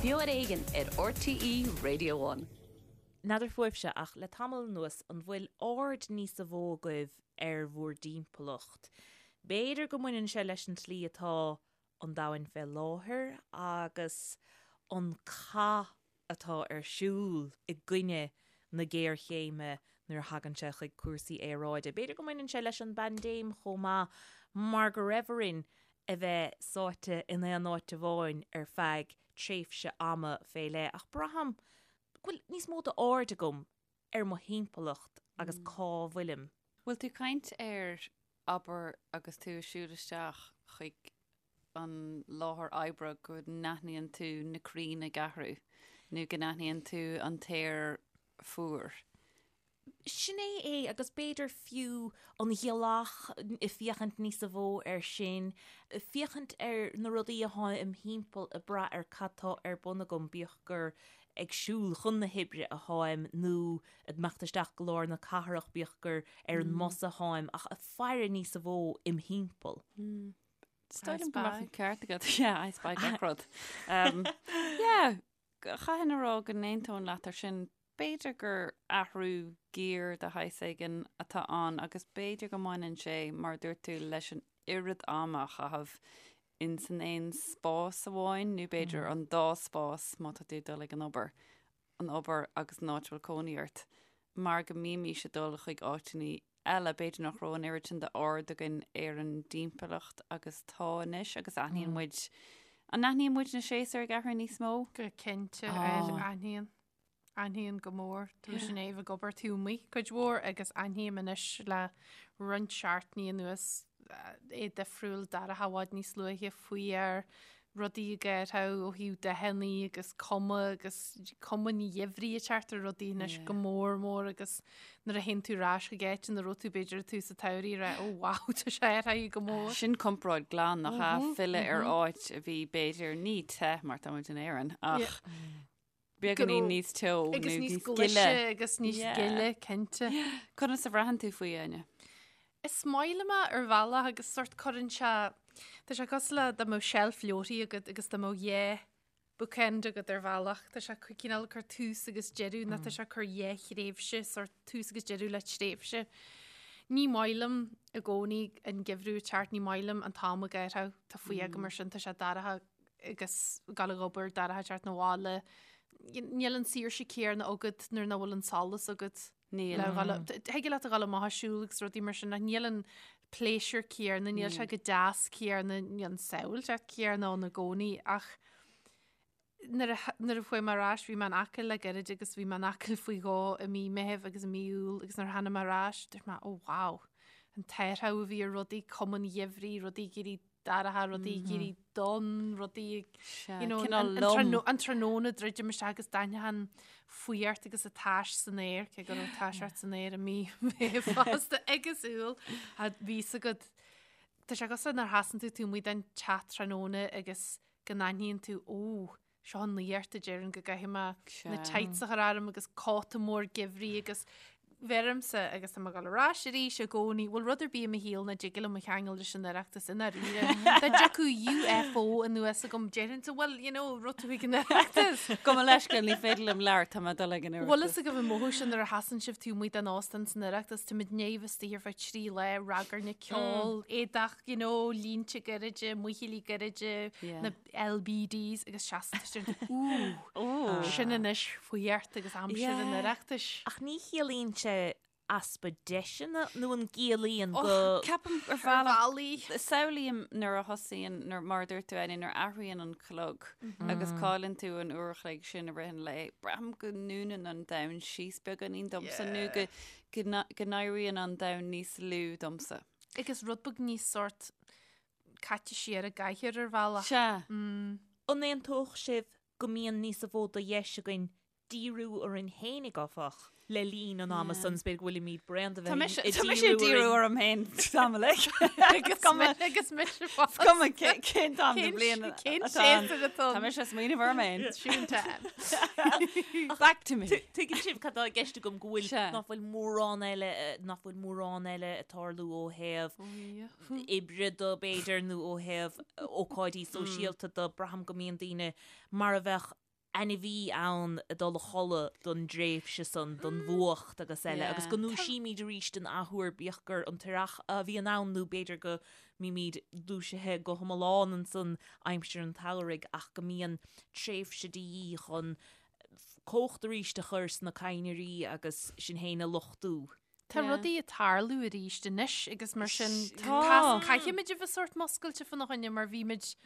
Beo ar Éigean ar RTÉ Radio One. N'fheadar fúibhse, ach le tamall anuas, an bhfuil aird níosa mhó agaibh ar bhur dtimpeallacht? B'fhéidir go mbaineann sé leis an tslí atá an domhain fé láthair agus an cath atá ar siúl i gcoinne na géarchéime nuair a thagann sé chuig cúrsaí aeráide. B'fhéidir go mbaineann sé leis an bpaindéim chomh maith mar go raibh orainn a bheith sáite in aon áit amháin ar feadh tréimhse ama fé leith ach braithim go bhfuil níos mó d'aird agam ar mo thimpeallacht agus cá bhfuilim. Bhfuil tú ag caint ar, abair, agus tú ag siúl isteach chuig an láthair oibre go n-aithníonn tú na crainn ag athrú nó go n-aithníonn tú an t-aer fuar. Sin é é agus b'fhéidir fiú an ghealach, féachaint níosa mhó air sin, féachaint ar na rudaí atá im thimpeall ag brath ar cad tá ar bun agam, bíodh gur ag siúl chun na hoibre atáim nó ag imeacht isteach go lár na cathrach, bíodh gur ar an mbus atáim, ach ag faire níosa mhó im thimpeall. Is dóigh liom go mbeadh an ceart agat. Yeah, I spy gach rud. Um, yeah, chaithfinn a rá go n-aontóinn leat ar sin. B'fhéidir gur athrú giar de shaghas éigin atá ann agus b'fhéidir go mbaineann sé, mar a dúirt tú, leis an oiread ama a chaitheamh in san aon spás amháin nó b'fhéidir an dá spás má tá tú ag dul ag an obair, an obair agus an áit a bhfuil cónaí ort, mar go mbímís ag dul chuig áiteanna eile, b'fhéidir nach raibh an oiread sin d'aird againn ar an dtimpeallacht agus tá anois agus aithníonn muid, an aithníonn muid na séasúir ag athrú níos mó? Go cinnte, aithníonn. Aithníonn go mór. Tá mise i ndiaidh a bheith ag obair taobh amuigh cuid mhór agus aithním anois le roinnt seachtainí anuas é difriúil, dorcha i bhfad níos luaithe, faoi rudaí ag athrú ó thaobh dathanna agus cuma agus cuma an gheimhridh ag teacht ar rudaí anois go mór mór agus nuair a théann tú ar ais chuig áit ina raibh tú b'fhéidir ag tús an tsamhraidh rá oh wow tá sé athraithe go mór. Sin comparáid glan nach ea filleadh ar áit a bhí b'fhéidir ní te mar tá muid in Éirinn ach beagáinín níos teo agus níos gile agus níos gile cinnte. Conas a bhraitheann tú faoi Áine? Is maith liom é ar bhealach agus sort cuireann sé tá sé cosúil le dá mbeadh seilf leabharthaí agat agus dá mbeadh dhá bookend agat ar bhealach. Tá sé cineál ag cur tús agus deireadh nó tá sé ag cur dhá thréimhse sort tús agus deireadh le tréimhse. Ní maith liom i gcónaí an geimhreadh ag teacht, ní maith liom an t-am ag athrú, tá fuath agam air sin, tá sé dorcha agus ag gabháil ag obair, dorcha ag teacht 'na bhaile. Níl an saoirse céanna agat nuair nach bhfuil an solas agat. Níl. Thig leat a dhul amach ag siúl agus rudaí mar sin ach níl an pléisiúr céanna, níl sé chomh deas céanna, níl an tsamhailteacht céanna ann i gcónaí ach nuair a nuair a chuaigh mé ar ais bhí mé in Acaill le gairid agus bhí mé in Acaill faoi dhó i mí Meithimh agus i mí Iúil agus nuair a tháinig mé ar ais dúirt mé oh wow an t-athrú a bhí ar rudaí, cuma an gheimhridh, rudaí ag éirí dorcha, rudaí ag éirí donn, rudaí you know, an, an, an tráthnóna druidim isteach agus d'aithneofá an fuireacht agus an tais san aer, cé go raibh tais ort san aer i mí Mheithimh fosta agus Iúil, a bhí 's agat. Tá sé cosúil nuair a sheasann tú taobh amuigh den teach tráthnóna agus go n-aithníonn tú, ó, seo an nuacht a deireann go gcaithfidh mé na tights a chur orm agus cóta mór geimhridh agus bheirimse agus tá mé ag dul ar ais arís i gcónaí, bhfuil rud ar bith i mo shaol nach dtig liom a cheangal leis an Oireachtas i ndáiríre. Dá dtiocfadh UFO anuas agam déarfainnse well you know rud tú ag an Oireachtas. Gabh mo leithscéal ní féidir liom labhairt tá mé ag dul ag an Oireachtas. Bhfuil fhios agaibh an mothú sin nuair a sheasann sibh taobh amuigh den óstán san Oireachtas, tá muid i ndiaidh a bheith istigh ar feadh 3 lá, ragairne, ceol, éadach, you know, línte gairide, muichillí gairide, na LBDs agus seasann tú Ooh, sin anois fuireacht agus aimsir an Oireachtais. Ach ní chiallaíonn sé easpa deiseanna nó an gciallaíonn go. Ceapaim ar bhealach, samhlaím nuair a thosaíonn, nuair, mar a dúirt tú Áine, nuair a athraíonn an clog agus cailleann tú an uair a chloig sin i rith an lae, braithim go ndúnann an domhan síos beagáinín domsa nó go go n-éiríonn an domhan níos lú domsa. Agus rud beag níos sort caite siar i gcathaoir ar bhealach. Sea. An aontódh sibh go mbíonn níosa mhó de dheis againn díriú orainn fhéinig, áfach, le linn an ama san, is b'fhéidir go bhfuilimid bréan de bheith ag díriú orainn. Tá mise ag díriú orm féin tamall Agus agus mise fós. Is cuma cén t-am den bhliain Cén séasúr atá Tá mise ag smaoineamh orm féin. Tune time. Back to me. Tuigeann sibh cad tá i gceist agam go bhfuil nach bhfuil mórán eile nach bhfuil mórán eile ag tarlú ó thaobh oibre de b'fhéidir nó ó thaobh ócáidí sóisialta de, braithim go mbíonn daoine mar a bheadh. Ainmhí ann ag dul a chodladh don dtréimhse san, don bhfuacht agus eile, agus go ndúisímid arís an athuair, bíodh gur an t-earrach a bhíonn ann nó b'fhéidir go mbímid dúisithe go hiomlán ansan aimsir an tsamhraidh ach go mbíonn tréimhse de dhíth chun cumhacht arís a chur sna cadhnraí agus sinn féin a luchtú. Tá rudaí ag tarlú arís anois agus mar sin caithfimid a bheith sórt muscailte fána choinne mar bhí muid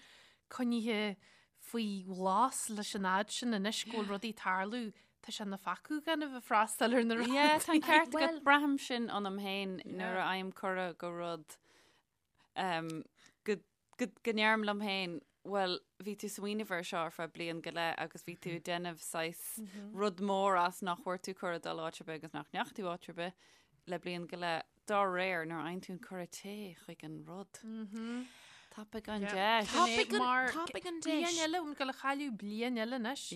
coinnithe faoi ghlas leis an fhad sin anois go bhfuil rudaí ag tarlú tá sé ina pheacú gan a bheith freastal ar na rudaí. Yeah, tá an ceart agat braithim sin ionam féin nuair a fhaighim cuireadh go rud go go ndeirim liom féin, bhuel, bhí tú smaoineamh air seo ar feadh bliain go leith agus bhí tú ag déanamh saghas rud mór as nach bhfuair tú cuireadh dul áit ar bith agus nach ndeachaigh tú áit ar bith le bliain go leith. Dá réir, nuair a fhaigheann tú an cuireadh téigh chuig an rud. Tapaigh an deis. Tapaigh an deis. Bliain eile, ag gabháil a chailleadh bliain eile anois.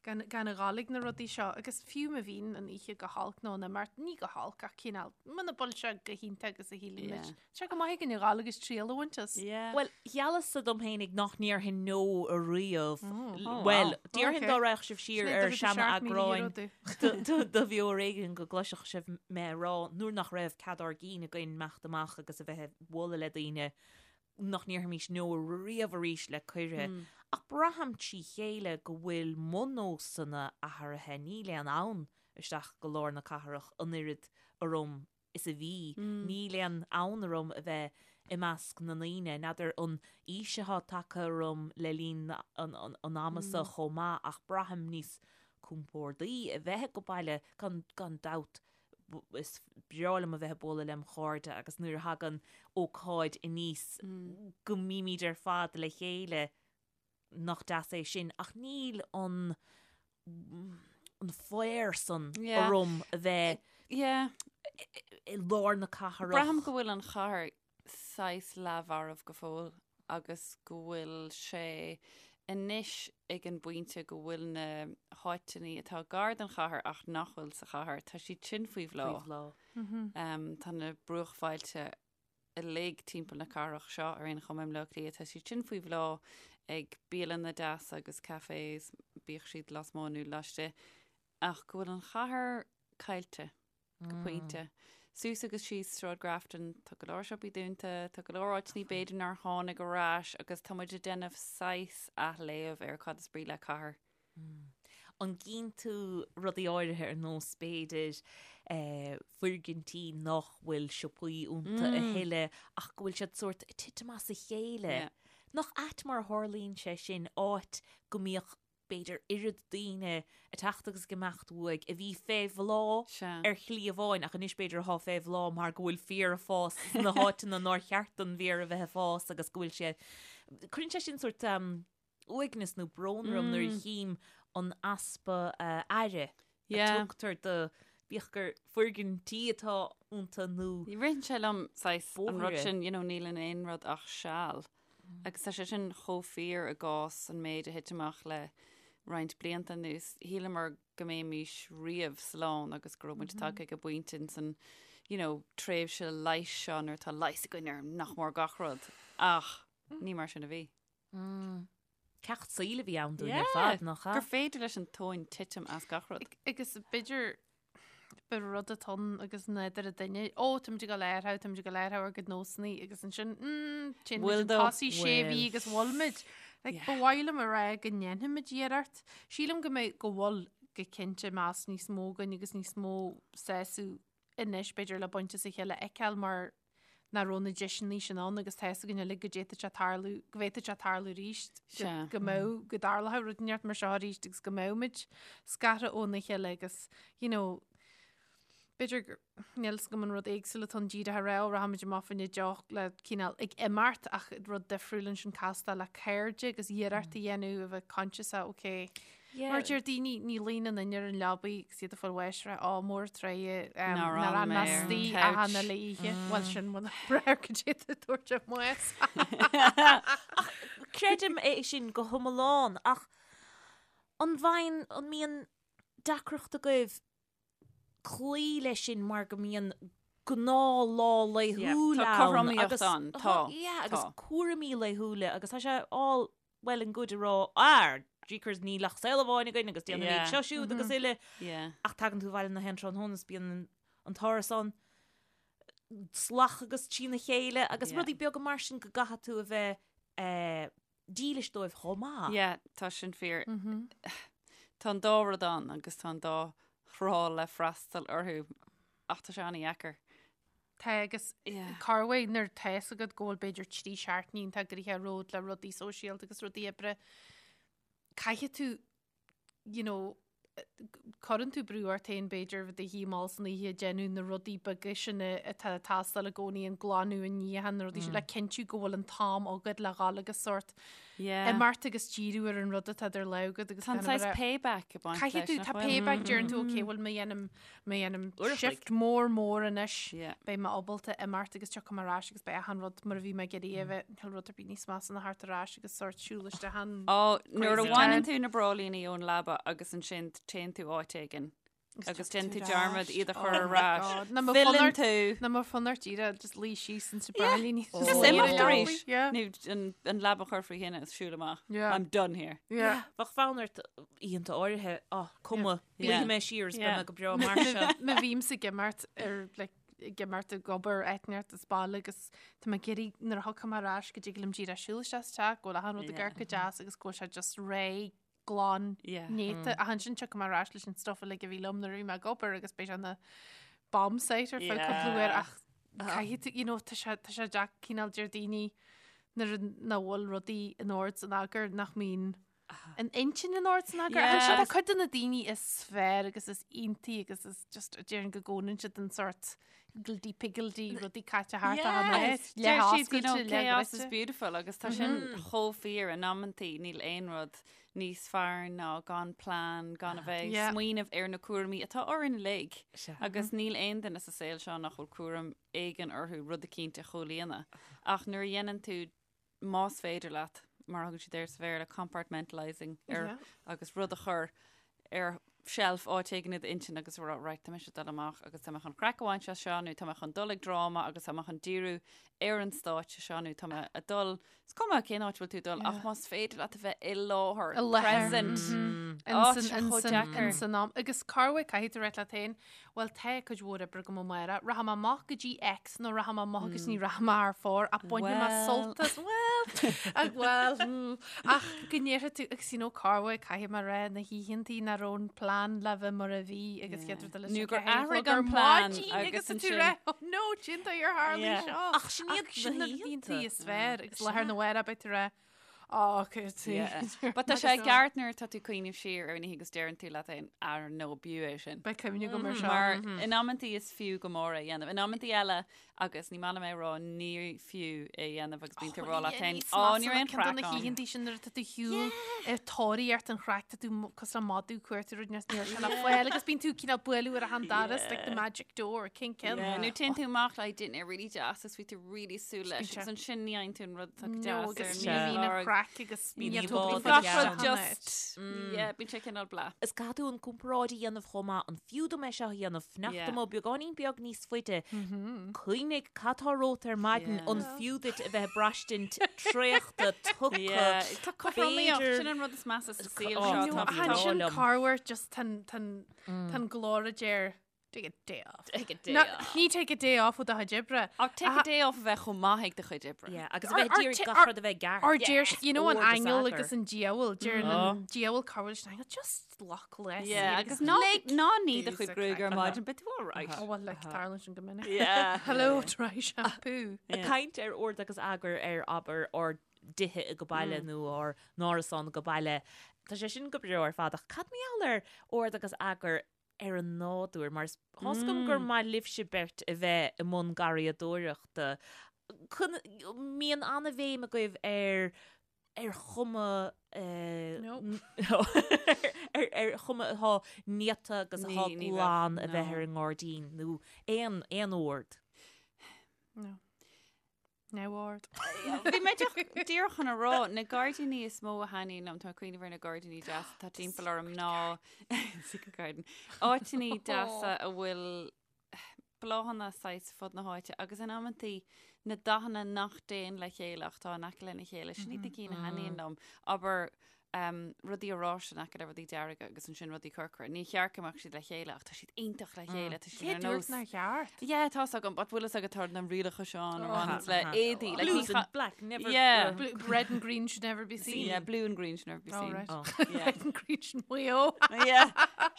Gan gan a ghabháil ag na rudaí seo agus fiú má bhíonn an oíche go holc nó an imeacht, ní go holc ach cineál, muna bhfuil sé go hiontach agus a shíleann muid. Tá sé go maith againn a ghabháil agus triail a bhaint as. Bhuel, gheallas-sa dom fhéinig nach ndéarfainn no ariamh. Bhuel, déarfainn dá raghadh sibh siar ar seana-eagráin de Bheo Ar Éigean go gcloisfeadh sibh mé a rá nuair nach raibh cead ár gcinn againn imeacht amach agus a bheith ag bualadh le daoine nach ndéarfaimis no riamh arís le cuireadh, ach braithim trí chéile go bhfuil mo nósanna athraithe, níl aon fhonn isteach go lár na cathrach an oiread orm is a bhí, níl aon fhonn orm a bheith i measc na ndaoine, n'fheadar an aois atá tagtha orm le linn an ama seo chomh maith ach braithim níos compórdaí a bheith ag baile gan gan dabht. is breá liom a bheith ag bualadh lem chairde agus nuair a thagann ócáid aníos go mbímid ar fad le chéile nach deas é sin ach níl an an fhear san orm a bheith i lár na cathrach. Braithim go bhfuil an chathair saghas leathmharbh go fóill agus go bhfuil sé anois ag an bpointe go bhfuil na háiteanna atá gar don chathair ach nach bhfuil sa chathair, tá siad sin faoi bhláth. Faoi bhláth. Tá na bruachbhailte uilig timpeall na cathrach seo ar aon chuma i mBleá Cliath, tá siad sin faoi bhláth ag bialanna deasa agus cafés, bíodh siad lasmuigh nó laistigh, ach go bhfuil an chathair caillte. go pointe. Suas agus síos Sráid Grafton, tá go leor siopaí dúnta, tá go leor áiteanna b'fhéidir nár tháinig ar ais agus tá muid ag déanamh saghas athléamh ar cad is brí le cathair. An gcíonn tú rudaí áirithe ar nós b'fhéidir foirgintí nach bhfuil siopaí iontu a thuilleadh ach go bhfuil siad sórt ag titim as a chéile? Nach ait mar a tharlaíonn sé sin, áit go mbíodh b'fhéidir oiread daoine ag teacht agus ag imeacht uaidh a bhí fé bhláth ar shlí amháin ach anois b'fhéidir atá fé bhláth mar go bhfuil féar ag fás sna háiteanna nár cheart don bhféar a bheith ag fás agus go bhfuil sé Cuireann sé sin sórt uaigneas nó brón orm nuair a chím an easpa aire a tugtar do bíodh gur foirgintí atá iontu nó Ritheann sé liom saghas an rud sin, you know, níl in aon rud ach seal. Agus tá sé sin chomh fíor i gcás an méid a thit amach le roinnt blianta anuas. Shíleamar go mbeimis riamh slán agus go raibh muid tagtha ag an bpointe in san, you know, tréimhse leighis seo nuair atá leigheas againn ar nach mór gach rud. Ach ní mar sin a bhí. Ceacht saoil a bhí ann dúinn ar fad, nach ea? Gur féidir leis an tóin titim as gach rud. Agus b'fhéidir ba rud atá ann agus nádúr an duine, ó táimid ag dul a athrú, táimid ag dul a athrú ár gcuid nósanna agus ansin, mm, téann muid chun tosaigh sé mhí agus bhfuil muid. Like, ba mhaith liom a rá go ndéanfaimid iarracht. Sílim go mbeidh go bhfuil go cinnte meas níos mó againn agus níos mó sásamh anois b'fhéidir le baint as a chéile a fheiceáil mar nach raibh na deiseanna sin ann agus tá fhios againn uilig go d'fhéadfadh sé tarlú, go bhféadfadh sé tarlú arís, go mbeadh, go dtarlódh rud inteacht mar seo arís agus go mbeadh muid scartha óna chéile agus, you know, b'fhéidir gur, níl fhios agam an rud éagsúil atá ann díreach a rá, ó rachaimid amach fá choinne deoch le cineál ag imeacht ach rud difriúil ansin castáil le cairde agus iarracht a dhéanamh a bheith conscious, okay, Mar deir daoine, ní luíonn aon duine ar an leabaidh agus iad ag fáil bháis rá, á mór an truaighe nár fhan mé istigh achan uile oíche. Bhuel sin muna breá go dté tú tabhairt ar maos. Creidim é sin go hiomlán ach an bhfaigheann, an mbíonn deacracht agaibh cloí leis sin mar go mbíonn gnáthlá laethúil ann. Tá cothromaíocht ann, tá. Yeah, agus cúraimí laethúla agus tá sé all well and good a rá, ah! jeekers níl ach saol amháin againn agus déanaimid seo siúd agus uile. Ach tagann tú abhaile na haon tráthnóna is bíonn an t-árasán salach agus trína chéile agus rudaí beaga mar sin go gcaithfidh tú a bheith eh, dílis dóibh chomh maith. Yeah, tá sin fíor. Tá an dá rud ann agus tá an dá thrá le freastal orthu ach tá sé an-dheacair. Tá agus corruair nuair tá fhios agat go bhfuil b'fhéidir 3 seachtainí iontach gnoitheach romhat le rudaí sóisialta agus rudaí oibre, caithfidh tú you know, cuireann tú brú ort féin b'fhéidir bheith i do shuí mall san oíche ag déanamh na rudaí beaga sin atá ag teastáil i gcónaí, an glanadh, an níochán, na rudaí sin, le cinntiú go bhfuil an t-am agat le dhul agus sórt imeacht agus díriú ar an rud atá idir lámha agat agus Tá an saghas payback ag baint Caithfidh tú, leis, tá nach bhfuil? payback, deireann tú, ok, bhuel má dhéanaim, má dhéanaim shift mór mór anois, beidh mé ábalta imeacht agus tiocfaidh mé ar ais agus beidh achan rud mar a bhí mé ag iarraidh a bheith, níl rud ar bith níos measa ná theacht ar ais agus sórt siúl isteach an Ó, nuair a bhaineann tú na bráillíní ón leaba agus ansin téann tú áit éigin agus déanann tú dearmad iad a chur ar ais. Filleann tú. Ná mar fonn ort díreach just luí síos insa bráillíní. Just imeacht arís. Nó an leaba a chur faoi thine is siúl amach. I'm done here. Bheadh fonn ort oícheanta áirithe, á, cuma, Luífidh mé siar is beidh mé go breá mar seo. Má bhímse ag imeacht ar like, ag imeacht ag obair eitneart is baile agus tá mé ag iarraidh nuair a thiocfaidh mé ar ais go dtig liom díreach siúl isteach sa teach, go bhfuil achan rud ag amharc go deas agus go bhfuil sé just réidh, glan, néata. Ach ansin tiocfaidh mé ar ais leis an stuff uilig a bhí liom nuair a bhí mé ag obair agus beidh sé ina bomb site ar feadh cúpla uair ach caithfidh tú, you know, tá sé tá sé deacair cineál deir daoine nuair nach bhfuil rudaí in ord san eagar nach mbíonn an intinn in ord san eagar. Ach ansin tá cuid de na daoine is fearr agus is iontaí agus is just déarfainn go gcónaíonn siad an sort higgledy piggledy rudaí caite thart achan áit, Deir siad, you know, chaos is beautiful agus tá sin chomh fíor in amantaí níl aon rud níos fearr ná gan plean, gan a bheith ag smaoineamh ar na cúraimí atá orainn uilig agus níl aon duine sa saol seo nach bhfuil cúram éigin orthu rud eicínt a chomhlíonadh. Ach nuair a dhéanann tú más féidir leat, mar a thugann siad air sa Bhéarla, compartmentalising ar agus rud a chur ar shelf áit éigin i d'intinn agus a rá, right, tá mise ag dul amach agus tá mé chun craic a bhaint as seo nó tá mé chun dul ag dráma agus tá mé chun díriú ar an stáitse seo nó tá mé ag dul, is cuma cén áit a bhfuil tú ag dul ach más féidir leat a bheith i láthair, I láthair. present. Á, tá sé chomh deacair. San am. Agus corruair caithfidh tú rá leat féin, Bhuel tá cuid mhór oibre agam amárach, rachaidh mé amach go dtí X nó rachaidh mé amach agus ní rachaidh mé thar fóir ach bainfidh mé sult as, bhuel, ach bhuel, hmm, ach go ndéarfaidh tú, agus you know corruair caithfidh mé rá na hoícheantaí nach raibh an plean le bheith mar a bhí agus chéad rud eile Nó gur athraigh an plean agus agus tú ansin- rá, oh no, cén dóigh ar tharla seo. Ach sin iad Ach sin na na hoícheanta. hoícheantaí is fearr agus lá arna mhárach beidh tú rá, Á, Yeah. But tá sé ceart nuair atá tú ag cuimhneamh siar ar an oíche agus deireann tú leat féin, ar no, b'fhiú é sin. Beidh cuimhne agam ar seo. Mar in amantaí is fiú go mór é a dhéanamh. In amantaí eile, agus ní maith liom é a rá, ní fiú é a dhéanamh agus bíonn tú ag rá leat féin, á, ní raibh aon Ceann de na chraic ann. hoícheantaí sin nuair atá tú ar shiúl ar tóraíocht an chraic, tá tú cosúil le madadh ag cuartú rud níl sé le fáil agus bíonn tú cineál bualadh ar achan doras, like the magic door, cén ceann? Yeah, Nó téann tú amach le dinnéar really deas agus bhí tú really súil leis agus ansin ní fhaigheann tú an rud atá go No, deas ar agus an ní bhíonn an lorg. chraic agus Bíonn ní íomhá tógfaí gach Gach rud rud just, yeah, bíonn sé cineál blah. Is caithfidh tú an comparáid a dhéanamh chomh maith, an fiú dom é seo a dhéanamh, fanacht Yeah. amuigh beagáinín beag níos faide, cuimhnigh cad tá romhat ar maidin, Yeah. an fiú duit a bheith ag braistint traochta, tugtha, Yeah, tá cothromaíocht, b'fhéidir- sin an rud is measa sa saol Oh, seo, no, tá ach tá Ansin liom. corruair just tá an- tá an tá an glór a deir Take a day off. Take a day No, off. Ní take a day off ó do chuid oibre. Ach take a day off a bheith chomh maith ag do chuid oibre. Yeah, agus a Or- bheith or d'iarraidh ta- gach or- rud a bheith ceart. Or deir, you know, an Ord is aingeal eagar. agus an diabhal, deir an diabhal corruair leis an aingeal, just glac leis. Yeah, agus ná ná ní do chuid gruaig ar maidin, but tú all right. Oh, well, like, tarlaíonn sin go minic. Yeah. Hello, dry shampoo. Ag caint ar ord agus eagar ar abair ár dtithe ag baile nó ár n-árasán ag baile. Tá sé sin go breá ar fad ach cad mar gheall ar ord agus eagar ar an nádúr, mar is tá's agam gur maith libhse beirt a bheith i mbun garraíodóireachta. Mbíonn an-bhéim agaibh ar ar chuma ar ar chuma atá néata agus atá glan a bheith ar an ngairdín nó aon aon ord. No. Neamhord. Bhí mé díreach chun a rá, na gairdíní is mó a thaitníonn liom, tá mé ag cuimhneamh ar na gairdíní deasa atá timpeall orm ná Secret Garden. Áiteanna deasa a bhfuil bláthanna saghas fud na háite agus in amantaí na dathanna nach dtéann le chéile ach tá in aice lena chéile, sin iad na cinn a thaitníonn liom. Abair. Um, rudaí oráiste in aice le rudaí dearga agus ansin rudaí corcra. Níor cheart go mbeadh siad le chéile ach tá siad iontach le chéile. Tá siad Cé ar dúirt nós. nár cheart? Yeah, tá a fhios agam, but bhfuil a fhios agat tá na rialacha seo ann a Oh. bhaineanns le éadaí. Like, ní Blues cha- and black never. Yeah. Blue, red and green should never be seen. Yeah, blue and green should never be Oh, seen. right. Oh. Yeah. Red and green should Maigh Eo. Yeah.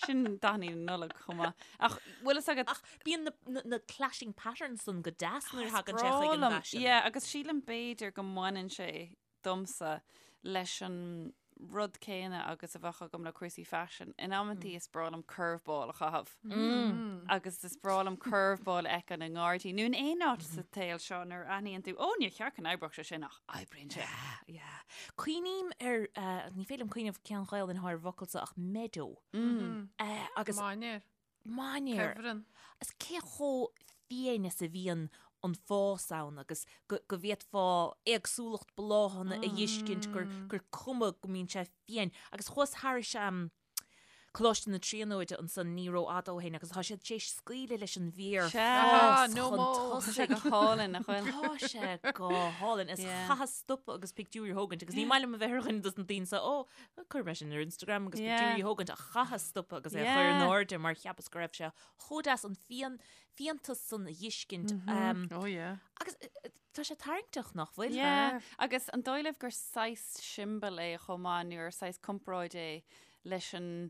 Sin dathanna na Nollag chomh maith. Ach bhfuil a fhios agat Ach bíonn na, na, na clashing patterns san go deas nuair a thagann sé chuig an Brá liom. bhfaisean. Yeah, agus sílim b'fhéidir go mbaineann sé domsa leis an rud céanna agus a bheadh agam le cúrsaí faisin. In amantaí is breá liom curveball a chaitheamh. Agus is breá liom curveball a fheiceáil i ngairdín nó in aon áit sa tsaol seo nuair a aithníonn tú, ó níor cheart go n-oibreodh sé sin ach oibríonn sé. Yeah. Cuimhním ar, eh, ní féidir liom cuimhneamh cén Ghaelainn atá ar an bhfocal seo ach meadow. Eh, agus Mainéar. Mainéar. Cuibhreann. Is cé chomh fiáin is a bhíonn an fás ann agus go go bhféadfá éagsúlacht bláthanna a fheiscint gur gur cuma go mbíonn sé fiáin. Agus chuas thairis Coláiste na Tríonóide ansan ní rófhada ó shin agus tá siad tar éis scaoileadh leis an bhféar Sea, fás no chun mo. Tá sé tosaigh. go hálainn, nach bhfuil? Tá sé go hálainn. Is Yeah. chaitheas stopadh agus pictiúirí a thógaint agus ní maith liom a bheith ar dhuine dos na daoine seo, ó, Chuir mé sin ar Instagram agus pictiúirí a thógaint ach chaitheas stopadh agus é a chur in airde mar cheapas go raibh sé chomh deas an fian, fiántas san a fheiscint. Oh yeah. Agus tá sé tarraingteach nach bhfuil? Yeah. Agus an dóigh libh gur saghas siombail é chomh maith nó gur saghas comparáid é leis an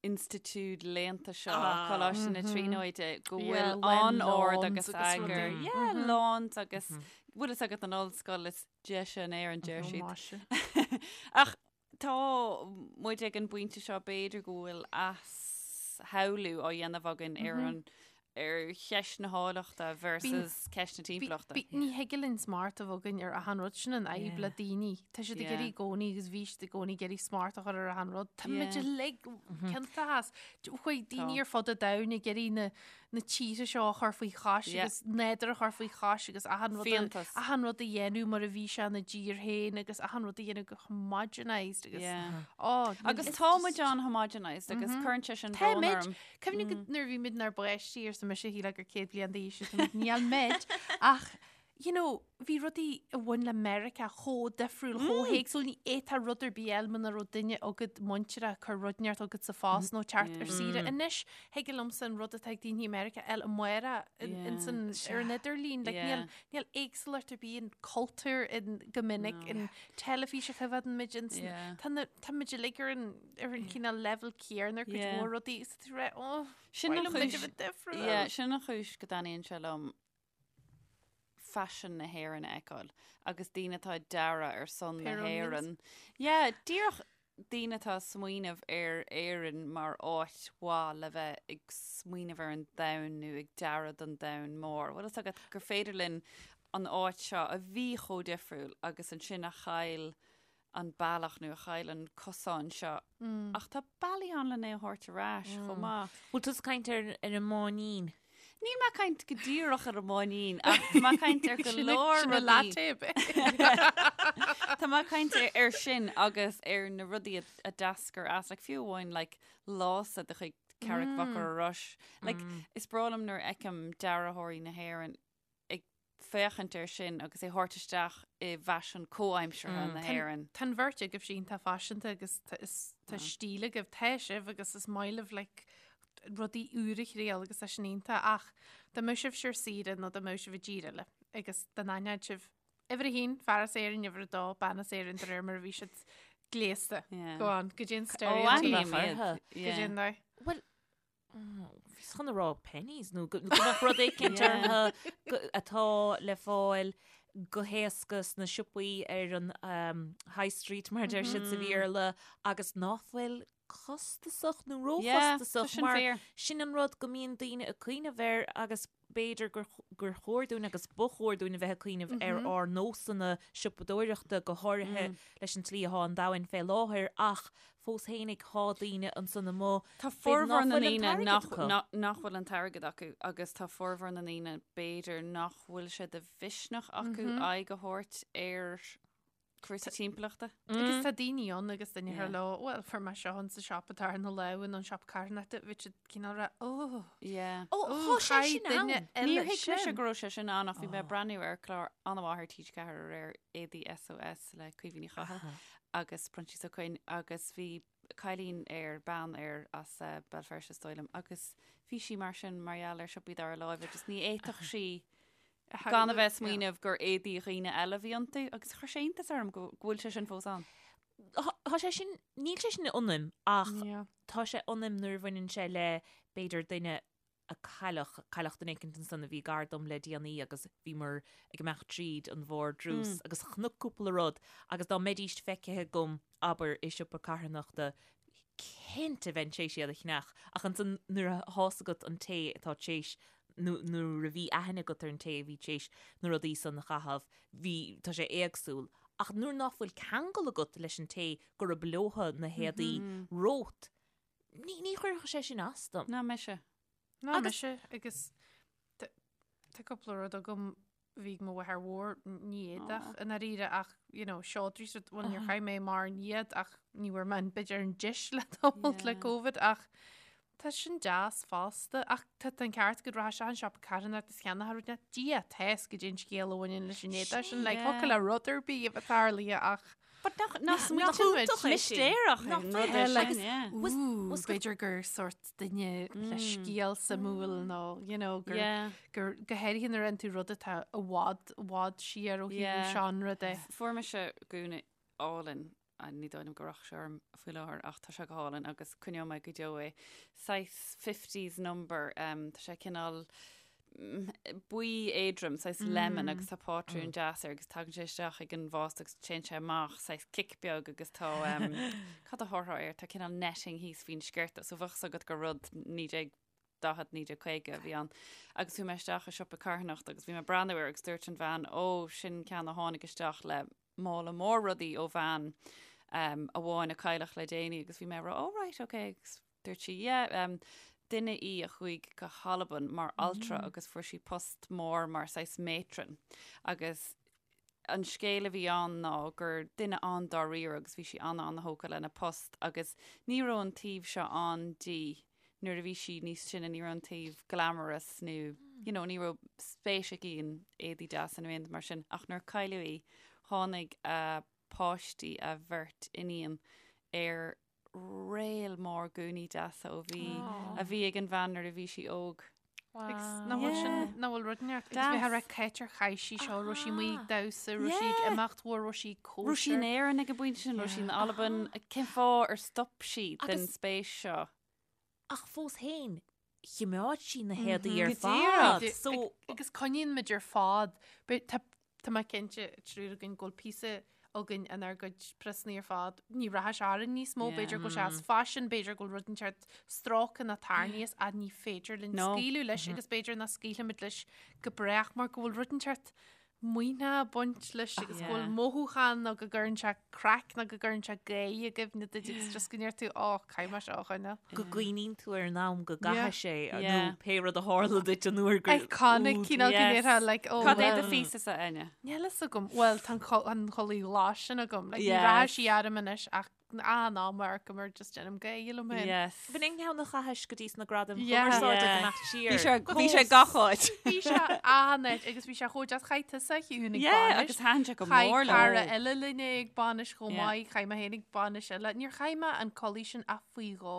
institiúid léannta seo, Coláiste na Tríonóide, go bhfuil an-ord agus eagar. Yeah, lawns agus bhfuil fhios agat an ollscoil is deise in Éirinn, deir siad. Ach Tá muid ag an bpointe seo, b'fhéidir go bhfuil athshamhlú á dhéanamh againn ar an ar cheist na háilleachta versus ceist na timpeallachta. Ní thig linn smacht a bheith againn ar achan rud, sin an fhadhb le daoine. Tá siad ag iarraidh i gcónaí agus bhí siad i gcónaí ag iarraidh smacht a chur ar achan rud. Tá muid uilig ciontach as. Chuaigh daoine ar fud an domhain ag iarraidh na na tíortha seo a chur faoi chois agus nádúr a chur faoi chois agus achan rud a, achan rud a dhéanamh mar a bhí sé ina dtír féin agus achan rud a dhéanamh go homogenised agus oh, agus tá muid an-homogenised agus mm-hmm. cuireann sé sin brón orm. Cuimhnigh mm. nuair a bhí muid inár bpáistí arsa mise shílfeá gur 100 bliain d'aois níl muid ach you know, bhí rudaí a bhain le Meiriceá chomh difriúil, chomh héagsúil, ní fhéadfá rud ar bith a fháil muna raibh duine agat muinteartha ag cur rud inteacht chugat sa phost nó teacht ar saoire. Anois, thig liomsa an rud atá ag daoine i Meiriceá a fháil amárach in, ar an idirlíon. Like, níl, níl éagsúlacht ar bith in cultúr in, go minic, in teilifís a choimhéadann muid, in, tá na, tá muid uilig ar an, ar an cineál level céanna ar cuid mhór rudaí, is tá tú ag rá, oh, Sin an mhaith liom muid a chúis, bheith difriúil. yeah, sin an chúis go dtaitníonn sé liom faisean na hÉireann a fheiceáil agus daoine atá ag dearadh ar son na Pair onions. hÉireann. Yeah, díreach daoine atá ag smaoineamh ar Éirinn mar áit mhaith le bheith ag smaoineamh ar an domhan nó ag dearadh don domhan mór. Bhfuil fhios agat gur féidir linn an áit seo a bhí chomh difriúil agus ansin a chaill an bealach nó a chaill an cosán seo. Ach tá bealaí ann lena é a thabhairt ar ais chomh maith. Bhfuil tú ag caint ar ar an mbáinín? Níl mé ag caint go díreach ar an mbáinín ach tá mé ag caint ar go leor Sin a rudaí. latte a bit. Tá mé ag caint ar, ar sin agus ar na rudaí a, a d'eascair as, like, fiú amháin like, lása de chuid Carraig Mhachaire Rois. Like, Is breá liom nuair a fheicim dearthóirí na hÉireann ag féachaint air sin agus é thabhairt isteach i bhfaisean comhaimseartha na hÉireann. Tá an bheirt agaibh iontach faiseanta agus tá stíl agaibh, tá sibh agus is maith libh like, rudaí úra a thriail agus tá sin iontach ach dá mbeadh sibh ar saoire nó dá mbeadh sibh i dtír eile agus dá n-aithneodh sibh uimhir a haon, fear as Éirinn, uimhir a dó, bean as Éirinn de réir mar a bhí siad gléasta. Go on, goidé an stereotype. Goidé an dóigh. Well, Bhíos chun a rá Penneys nó go mbeadh rud éicint orthu atá le fáil go héasca sna siopaí ar an High Street mar a deir siad sa Bhéarla agus ná fuil costasach nó róchostasach mar sin an rud go mbíonn daoine ag cuimhneamh air agus b'fhéidir gur gur chóir dúinn agus ba chóir dúinn a bheith ag cuimhneamh ar ár nósanna siopadóireachta, go háirithe leis an tslí atá an domhan fé láthair, ach fós fhéinig tá daoine ansan amuigh, Tá b'fhéidir ná formhór na fuil an ndaoine t-airgead nach, acu. nach, nach bhfuil an t-airgead acu agus tá formhór na ndaoine b'fhéidir nach bhfuil sé de mhisneach acu aghaidh a thabhairt ar cúrsaí timpeallachta. Agus tá daoine ann agus duine ar leo, well, fuair mé seo in sa siopa atá ar na lámha nó an siopa carthanachta, bhí siad cineál rá, oh, Yeah. Ó, oh, tá sé chaith sin duine ann. eile Níor thuig mise sin. go raibh sé sin ann ach bhí mé ag breathnú ar chlár an-mhaith ar TG4 aréir Éadaí SOS le Caoimhe Ní Chathail. agus Proinsias Ó Coinn agus bhí cailín air, bean air as Béal Feirste is dóigh liom agus bhí sí mar sin mar gheall ar siopaí dara láimhe just ní fhéadfadh sí gan a bheith ag smaoineamh gur éadaí dhaoine eile a bhí iontu agus chuir sé iontas orm go bhfuil sé sin fós ann. Tá sé sin, níl sé sin ionam ach tá sé ionam nuair a bhaineann sé le b'fhéidir duine a cailleadh, cailleadh duine éicint ansan a bhí gar dom le déanaí agus bhíomar ag imeacht tríd an vardrús agus chonac cúpla rud agus dá mbeidíst feicthe agam, abair, i siopa carthanachta, cinnte bheinn tar éis iad a cheannach ach ansan nuair a thá's agat an té atá tar éis nó nuair a bhí aithne agat ar an té a bhí tar éis na rudaí san a chaitheamh, bhí, tá sé éagsúil. Ach nuair ná fuil ceangal agat leis an té gurab leotha na héadaí romhat, Ní, ní chuirfeadh sé sin as dom. Ná mise. Ná mise agus tá cúpla rud agam bhí ag mo mháthair mhór ní éadach i ndáiríre ach you know seodra is rud bhuel níor chaith mé mórán iad ach ní bhfuair mé an b'fhéidir an deis le tamall le Covid ach tá sin deas fosta ach tá an ceart agat rachfá isteach an siopa carthanachta is cheannófá rud Dia tá 'fhios goidé an scéal a bhaineann leis an éadach sin like thiocfadh le rud ar bith a bheith tarlaithe ach But nach, nach, nach iontach é sin? Mistéireach Nach an bhfuil? rud é sin, Agus yeah. Ooh, b'fhéidir gur sort duine le scéal suimiúil nó, you know, gur, Yeah. gur go háirithe nuair a fhaigheann tú rud atá i bhfad, i bhfad siar ó thaobh Yeah. seánra de. Fuair mise gúna álainn, ah, ní dóigh liom go rachadh sé orm faoi láthair ach tá sé go hálainn agus coinneoidh mé go deo é. Saghas 50s number, um, tá sé cineál buí éadrom, saghas lemon agus tá pátrún deas air agus tagann sé isteach ag an bhást agus téann sé amach saghas cic beag agus tá cad a thabharfá air, tá cineál netting thíos faoin sciorta so bheadh 's agat gur rud 1940, 1950 a bhí ann. Agus chuaigh mé isteach i siopa carthanachta agus bhí mé ag breathnú air agus dúirt an bhean, ó, sin ceann a tháinig isteach le mála mór rudaí ó bhean amháin a cailleadh le déanaí agus bhí mé ag rá, oh right, okay, agus Dúirt sí, yeah, um, duine í a chuaigh go hAlbain mar altra agus fuair sí post mór mar saghas matron. Agus an scéal a bhí ann ná gur duine an-dáiríre agus bhí sí an-an-thógtha lena post agus ní raibh an taobh seo ann di nuair a bhí sí níos sine, ní raibh an taobh glamorous nó you know, ní raibh spéis aici in éadaí deasa nó aon rud mar sin. Ach nuair a cailleadh í, tháinig a páistí, a bheirt iníon, ar réal mór gúnaí deasa ó bhí a bhí ag an bhean nuair a bhí sí óg. Agus nach bhfuil sin nach bhfuil rud neart agus bheith rá cá háit ar chaith sí seo raibh sí amuigh ag damhsa raibh sí ag imeacht mhór raibh sí ag cóisir. Raibh sí in Éirinn ag an bpointe sin raibh sí in Albain cén fáth ar stop sí den spéis seo? Ach fós féin chimeád sí na héadaí ar fad. So agus coinníonn muid ar fad. Tá tá mé cinnte triúr againn go bhfuil píosa againn inár gcuid priosanna ar fad. Ní rachaidh sé orainn níos mó, b'fhéidir go bhfuil sé as faisean, b'fhéidir go bhfuil rud inteacht stróicthe nó tarraingthe as ach ní féidir linn scaoileadh leis agus b'fhéidir nach scaoilfimid leis go brách mar go bhfuil rud inteacht maoithneach ag baint leis agus go bhfuil mothúchán nó go gcuireann sé craic nó go gcuireann sé gáire i gcuimhne duit agus just go ndeir tú ó caithfidh mé seo a choinneáil. Go gcuimhníonn tú ar an am go gcaithfidh sé nó pé rud a tharla duit an uair gur Iconic cineál go ndéarfá like oh Cad é do phíosa-sa Áine? Níl fhios agam. Bhuel tá an chulaith ghlas sin agam. Like ní rachaidh sí orm anois ach An am ar go mar just déanaim gáire liom féin. Yes. B'in an ceann a chaithis go dtí sna gradaim chumarsáide ag imeacht siar. Bhí sé bhí sé gach áit. Bhí sé an-áit agus bhí sé chomh deas chaith tusa a Shiún ag Yeah, agus thaitin sé go mór liom. Chaith cara eile linn é ag bainis chomh maith, chaith mé féin ag bainis eile. Níor chaith mé an culaith sin ach faoi dhó.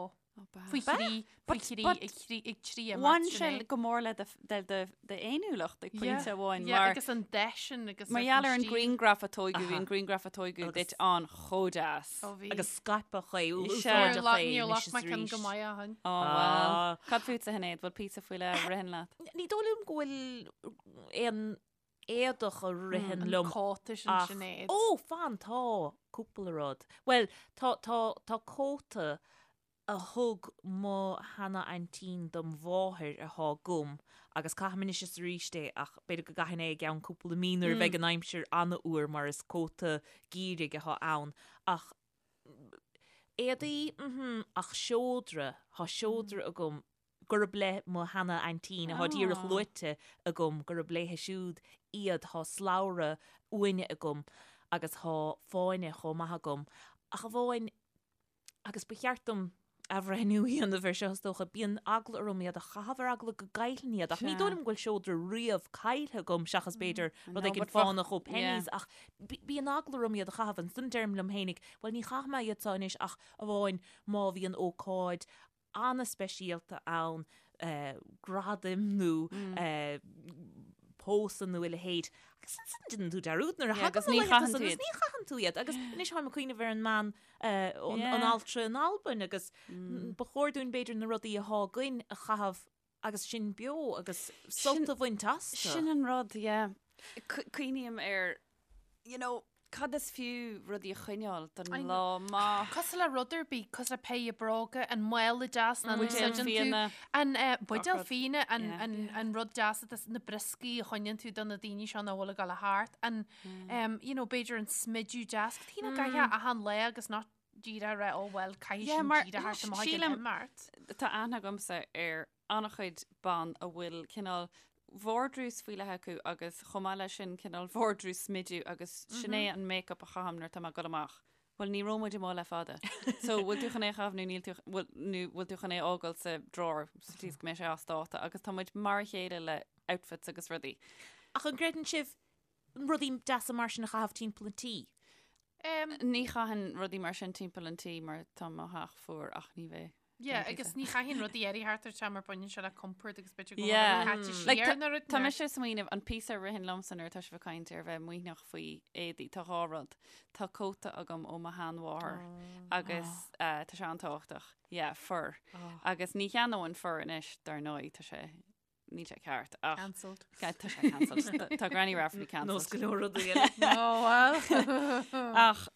Faoi thrí, faoi thrí, ag trí, ag trí imeacht Bhain sé go mór le d'fhéiniúlacht ag pointe amháin mar. agus an dath sin agus Mar gheall ar an ghrianghraf a tógadh, bhí an grianghraf a tógadh duit an chomh deas. Agus scaipeadh é, úsáideadh é Níor ghlac mé ceann go maith ó shin. Ó bhuel. Cad fútsa a Shinéad, bhfuil píosa faoi leith a ritheann leat? Ní dóigh liom go bhfuil aon éadach a ritheann liom. An cóta sin ach- Sinéad. Ó, fan, tá cúpla rud. Bhuel, tá, tá, tá cóta a thug mo sheana-aintín dom mháthair athá agam agus caithim anois is arís é ach b'fhéidir go gcaithfinn é i gceann cúpla mí nuair a bheidh an aimsir an-fhuar mar is cóta geimhridh athá ann. Ach éadaí, mhm, ach seodra, thá seodra agam gurb le mo sheana-aintín, athá díreach luaite agam, gurb léithe siúd iad, thá slabhra uaine agam agus thá fáinne chomh maith agam, ach amháin, agus ba cheart dom. athbhreithniú a dhéanamh air seo is dócha. Bíonn eagla orm iad a chaitheamh ar eagla go gcaillfinn iad ach ní dóigh liom go bhfuil seodra riamh caillte agam seachas b'fhéidir rud éigin fánach ó Penneys ach bíonn eagla orm iad a chaitheamh. Ansan deirim liom fhéinig, bhuel ní chaithfidh mé iad seo anois ach amháin má bhíonn ócáid an-speisialta ann, gradaim nó pósadh nó a leithéid. Agus ansan déanann tú dearúd nuair a thagann na laethanta san agus ní chaitheann tú iad. Agus anois táim ag cuimhneamh ar an mbean, an altra in Albain agus ba chóir dúinn b'fhéidir na rudaí athá againn a chaitheamh agus sinn beo agus sult a bhaint astu. Sin an rud, yeah. Cuimhním ar, you know, cad is fiú rudaí a choinneáil don lá maith. Cosúil le rud ar bith, cosúil le péire bróga, an mála deas nach n-úsáideann tú, an buidéal fíona, an rud deas atá na brioscaí a choinníonn tú do na daoine seo nach bhfuil ag dul thart, an, you know, b'fhéidir an smideadh deas, cad nach gcaithfeá achan lá agus nach díreach a rá, oh well, caithfidh sin díreach thart amach ag an imeacht. Tá aithne agamsa ar an-chuid ban a bhfuil cineál vardrús faoi leith acu agus chomh maith leis sin cineál vardrús smidiú agus sin é an make-up a chaithim nuair atá mé ag dul amach. Bhuel ní raibh muid amuigh le fada. So bhfuil tú chun é a chaitheamh nó níl tú, bhfuil, nó bhfuil tú chun é a fhágáil sa drawer sa tslí is go mbeidh sé as dáta agus tá muid mar a chéile le outfits agus rudaí. Ach an gcreideann sibh rudaí deasa mar sin a chaitheamh timpeall an tí? Ní chaithfinn rudaí mar sin timpeall an tí mar tá mo theach fuar ach ní bheidh. Yeah, agus ní chaithfinn rudaí eile thart ar teach mar baineann sé le compord agus b'fhéidir go bhfuil yeah. caite siar like, na rud. Tá mise ag smaoineamh an píosa a ritheann liomsa nuair atá sibh ag caint ar bheith maoithneach faoi éadaí, tá dhá rud. Tá cóta agam ó mo sheanmháthair oh. agus uh, tá sé an-tábhachtach. Yeah, fur. Oh. Agus ní cheannóinn fur anois dar ndóigh tá sé níl sé ceart ach Cancelled. Tá sé cancelled. Tá Granny Rafferty cancelled. Nós go leor rudaí eile. Oh well. Ach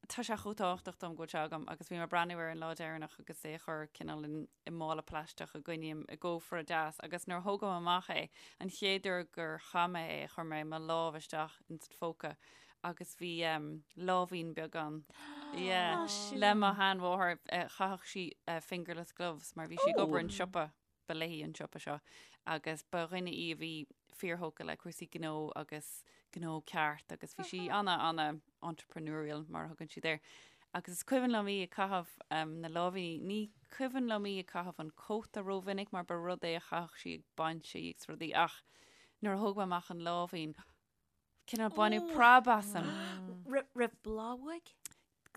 tá sé chomh tábhachtach dom go bhfuil sé agam agus bhí mé ag breathnú air an lá deireanach agus é a chur cineál in i mála plaisteach a gcoinním i gcófra deas agus nuair a thógaim amach é an chéad uair gur chaith mé é chuir mé mo lámh isteach in san phóca agus bhí um, láimhín beag ann. Yeah. Le mo sheanmháthair eh, chaitheadh sí eh, fingerless gloves mar bhí sí ag obair in siopa. ba léi an siopa seo agus ba dhuine í a bhí fíorthógtha le cúrsaí gnó agus gnó ceart agus bhí sí ana ana entrepreneurial mar a thugann siad air. Agus is cuimhin liom í ag caitheamh um, na láimhíní, ní cuimhin liom í ag caitheamh an cóta rómhinic mar ba rud é a chaitheadh sí ag bainsí agus rudaí ach nuair a thóg mé amach an láimhín, Cineál baineadh preab asam. Raibh boladh uaidh?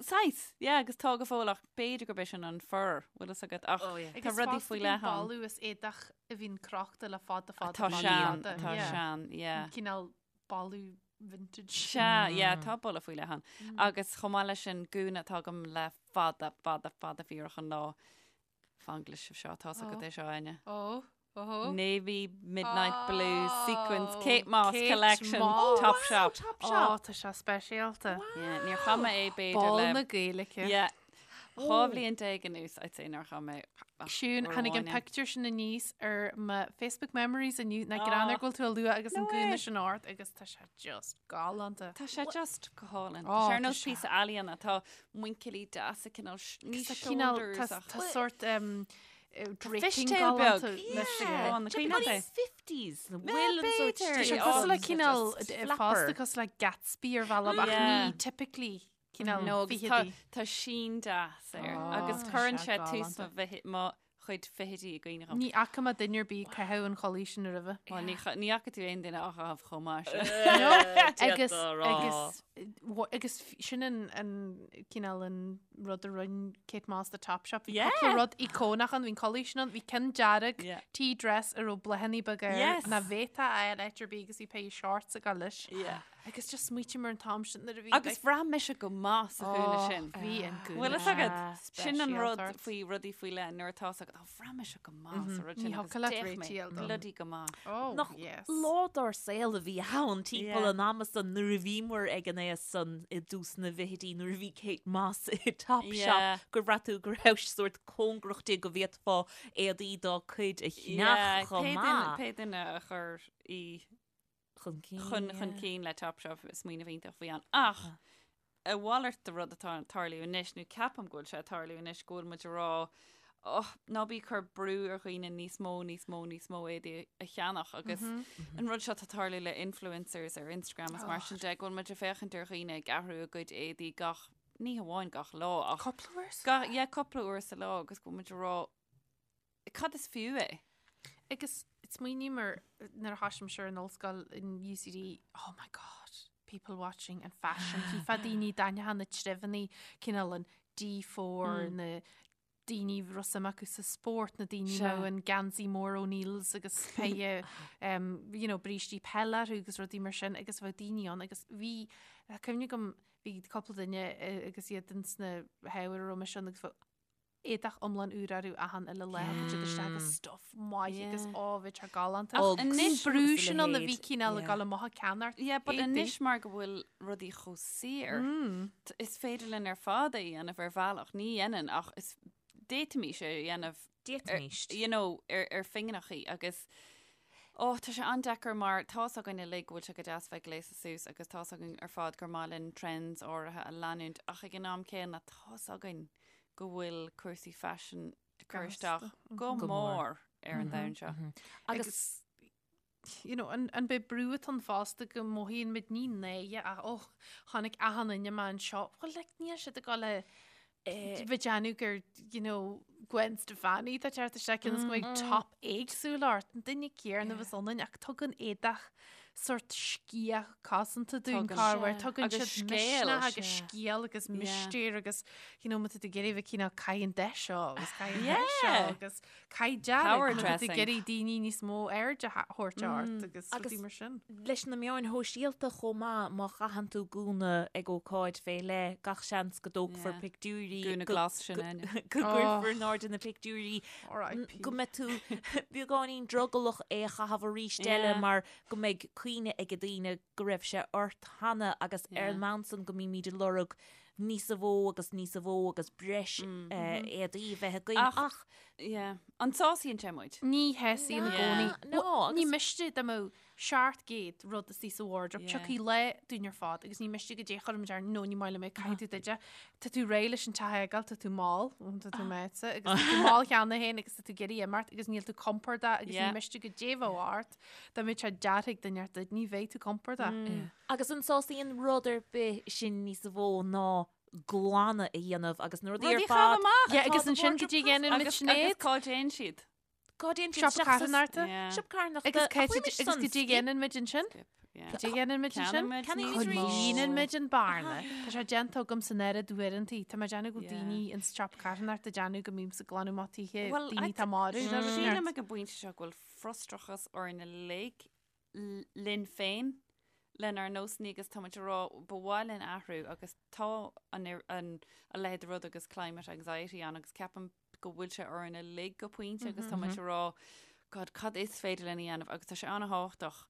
Saghas, yeah, agus tá go fóill ach b'fhéidir gurb é sin an fur, bhfuil fhios agat, ach Oh, yeah. tá rudaí faoi leith ann. Agus is éadach a bhíonn crochta le fada fada Tá sean, tá sean, yeah. Cineál boladh vintage. Sea, yeah, tá boladh faoi leith ann. Agus chomh maith leis sin, gúna atá agam le fada, fada, fada fíorach an lá. Fan go gcloisfidh sibh seo, tá's agat é seo, Áine. Ó, ó. Navy Midnight Blue Sequins Kate Moss Kate Collection Moss. Topshop. Topshop. Ó, tá sé speisialta. Yeah, níor chaith mé é b'fhéidir Ball le na Gaeilge. Yeah. 12 bhliain anuas, I'd say nár chaith mé ach Siún, uair tháinig an amháin é. pictiúr sin aníos ar mo Facebook memories inniu, na greann ar go bhfuil tú a lua agus an No gúna way. sin ort agus tá sé just galánta. Tá sé just go hálainn. Ó, Tá sé ar tá nós sé. píosa ealaíona. Tá muinchillí deasa cineál sh- ní Tá cineál shoulders ach tá sort um, eh, draping fishtail galánta beag. leis Yeah. yeah. An cuimhin leat é? 50s na bhfuil an sort b'fhéidir. Tá sé Yeah. cosúil le Oh, cineál just eh, flapper. fosta cosúil le Gatsby ar bhealach ach Yeah. ní typically cineál No, agus tá, fichidí. tá sín deas air Oh, agus tá cuireann sé sé tús galánta. mo bhithi- mo chuid fichidí i gcuimhne dhom. Ní fhaca mé duine ar bith ag caitheamh an chulaith sin roimhe. Bhuel, ní cha- ní fhaca tú aon duine á chaitheamh chomh maith sin. No, agus D'fhéadfá a rá. agus wa- agus f- sin an an cineál an rud a rinne Kate Moss do Topshop. Bhí Yeah. cúpla rud íocónach ann, bhí an chulaith sin ann, bhí ceann dearg Yeah. tea dress a raibh bláthanna beaga air Yes. nach bhféadfá a fháil áit ar bith agus bhí péire shorts ag dul leis. Yeah. Agus just smaoiním ar an t-am sin nuair a bhí Agus bhraith mise go maith sa ghúna Oh, sin. Bhí an gúna Bhfuil fhios agat? Sin an rud speisialta ort. faoi rudaí faoi leith nuair atá fhios agat, oh, bhraith mise go maith sa rud Ní sin agus thiocfadh leat d'fhéach mé réitigh dom. bloody go maith. Oh, Nach yes. lá dár saol a bhí ann timpeall Yeah. an ama san nuair a bhíomar ag an aois san i dtús na bhfichidí nuair a bhí Kate Moss i Topshop Yeah. gur bhraith tú go raibh sórt cóngarach di go bhféadfá éadaí dá cuid a Yeah, cheannach chomh pé duine- maith. pé duine a chuir í Chun cinn. chun chun cinn le Topshop smaoineamh iontach a bhí ann. Ach a mhalairt de rud atá ag tarlú anois, nó ceapaim go bhfuil sé ag tarlú anois, go bhfuil muid ag rá, oh, ná bí ag cur brú ar dhaoine níos mó, níos mó, níos mó éadaí a cheannach agus an rud seo atá ag tarlú le influencers ar Instagram is mar sin de, go bhfuil muid ag féachaint ar dhaoine ag athrú a gcuid éadaí gach. ní hamháin gach lá ach Cúpla uair sa lá. Yeah, cúpla uair sa lá agus go bhfuil muid ag rá cad is fiú é? Agus smaoiním ar nuair a thosaigh mise ar an ollscoil in UCD, oh my god, people watching and fashion, chífeá daoine d'aithneofá na treibheanna, cineál an D4, na daoine a raibh suim acu sa spórt, na daoine a mbeadh an geansaí mór O'Neills agus péire um, you know, brístí peile orthu agus rudaí mar sin agus bheadh daoine ann agus bhí tá cuimhne agam bhí cúpla duine eh, agus iad ins na hábhair a raibh mise ann agus bheadh éadach iomlán úr orthu achan uile lá thagadh siad isteach agus stuff maith agus Yeah. á bhí sé galánta. Ach An anois brú agus a sin ann a bhí leithéid, cineál ag yeah. dul amach ag ceannacht. Yeah, but éadaí. anois mar go bhfuil rudaí chomh saor, t- is féidir linn ar fad é a dhéanamh ar bhealach, ní dhéanann ach is d'fhéadfaimis é a dhéanamh D'fhéadfaimis. you know, ar, ar phingineachaí agus ó, tá sé an-deacair mar tá's againn uilig go bhfuil sé go deas bheith gléasta suas agus tá's againn ar fad gur maith linn trends áirithe a leanúint ach ag an am céanna tá's againn go bhfuil cúrsaí faisin ag cur isteach go Go mór. mór ar an domhan seo. Agus you know, an, an b'é brú atá ann fosta go mothaíonn muid ní náire ach oh, chonaic achan duine mé anseo. Well, like, níl siad ag dul a bheith ag déanamh gur, you know, Gwen Stefani tá teacht isteach cionn is go mbeidh top éagsúil ort, an duine céanna a bheas ionainn ach tugann éadach sort sciath cosanta dúinn Tugann. corruair, tugann Agus siad scéal. misneach agus Sea. scéal agus Yeah. mistéir agus you know, má tá tú ag iarraidh bheith cineál caith an deis seo agus caith an deis seo Yeah. agus caith dearg Power má tá tú ag dressing. iarraidh daoine níos mó aird a thabhairt ort agus Agus- rudaí mar sin. leis na meáin shóisialta chomh maith, má chaitheann tú gúna ag ócáid fé leith, gach seans go dtógfar Yeah. pictiúirí, Gúna go- glas sin go- Áine. go gcuirfear in airde na pictiúirí, R.I.P. go mbeidh tú beagáinín drogallach é a chaitheamh arís eile Yeah. mar go mbeidh cuimhne ag daoine go raibh sé ort cheana agus ar Yeah. an mbonn san go mbímid ag lorg níosa mhó agus níosa mhó agus breis éadaí a bheith againn Ach- ach Yeah. An sásaíonn sé muid? Ní shásaíonn i gcónaí. No, Bhuel, Ní agus- miste dá mbeadh 700 rud istigh sa wardrobe. Yeah. Tiocfaidh lá dúinn ar fad agus ní miste goidé a chuirfimid air nó ní maith liom é caithfidh tú duide. Tá tú réidh leis an teach a fhágáil, tá tú mall, tá tú meáite agus tá tú mall cheana féin agus tá tú ag iarraidh imeacht agus níl tú compordach agus ní Yeah. miste goidé a bheadh ort. Dá mbeadh sé deartha ag duine ort duit, ní bheidh tú compordach. Agus an sásaíonn rud ar bith sin níosa mhó ná glanadh a dhéanamh agus na rudaí Rudaí ar a fad. chaitheamh amach. Yeah, agus Tá ansin do goidé a dhéanann muid Agus, Sinéad. agus cá dtéann siad? Cá dtéann siad Siopa isteach sa- carthanachta. Yeah. Siopa carthanachta. Agus Ach, cá bhfuil mise agus san goidé a skip. dhéanann muid ansin? Skip, yeah. Goidé a dhéanann muid ansin? Ceannaíonn muid Ceannaíonn níos muid mó. arís. Líonann muid an bearna. Tá sé déanta agam san oiread uaireanta. Tá mé ag déanamh go Yeah. daoine in siopa carthanachta ag déanamh go mbímse ag glanadh amach tithe Well, daoine I tá marbh. Sílim ag an bpointe seo go bhfuil frustrachas orainn uilig linn féin, lenár nósanna agus tá muid ag rá ba mhaith linn athrú agus tá an an a leithéid de rud agus climate anxiety ann agus ceapaim go bhfuil sé orainn uilig go pointe agus tá muid ag rá God cad is féidir linn a dhéanamh agus tá sé an-thábhachtach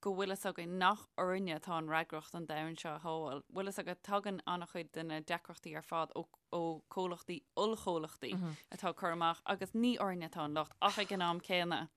go bhfuil fhios againn nach orainne atá an fhreagracht an domhan seo a shábháil. Bhfuil fhios agat tagann an-chuid de na deacrachtaí ar fad ó ó chomhlachtaí, ollchomhlachtaí atá ag cur amach agus ní orainne atá an locht ach ag an am céanna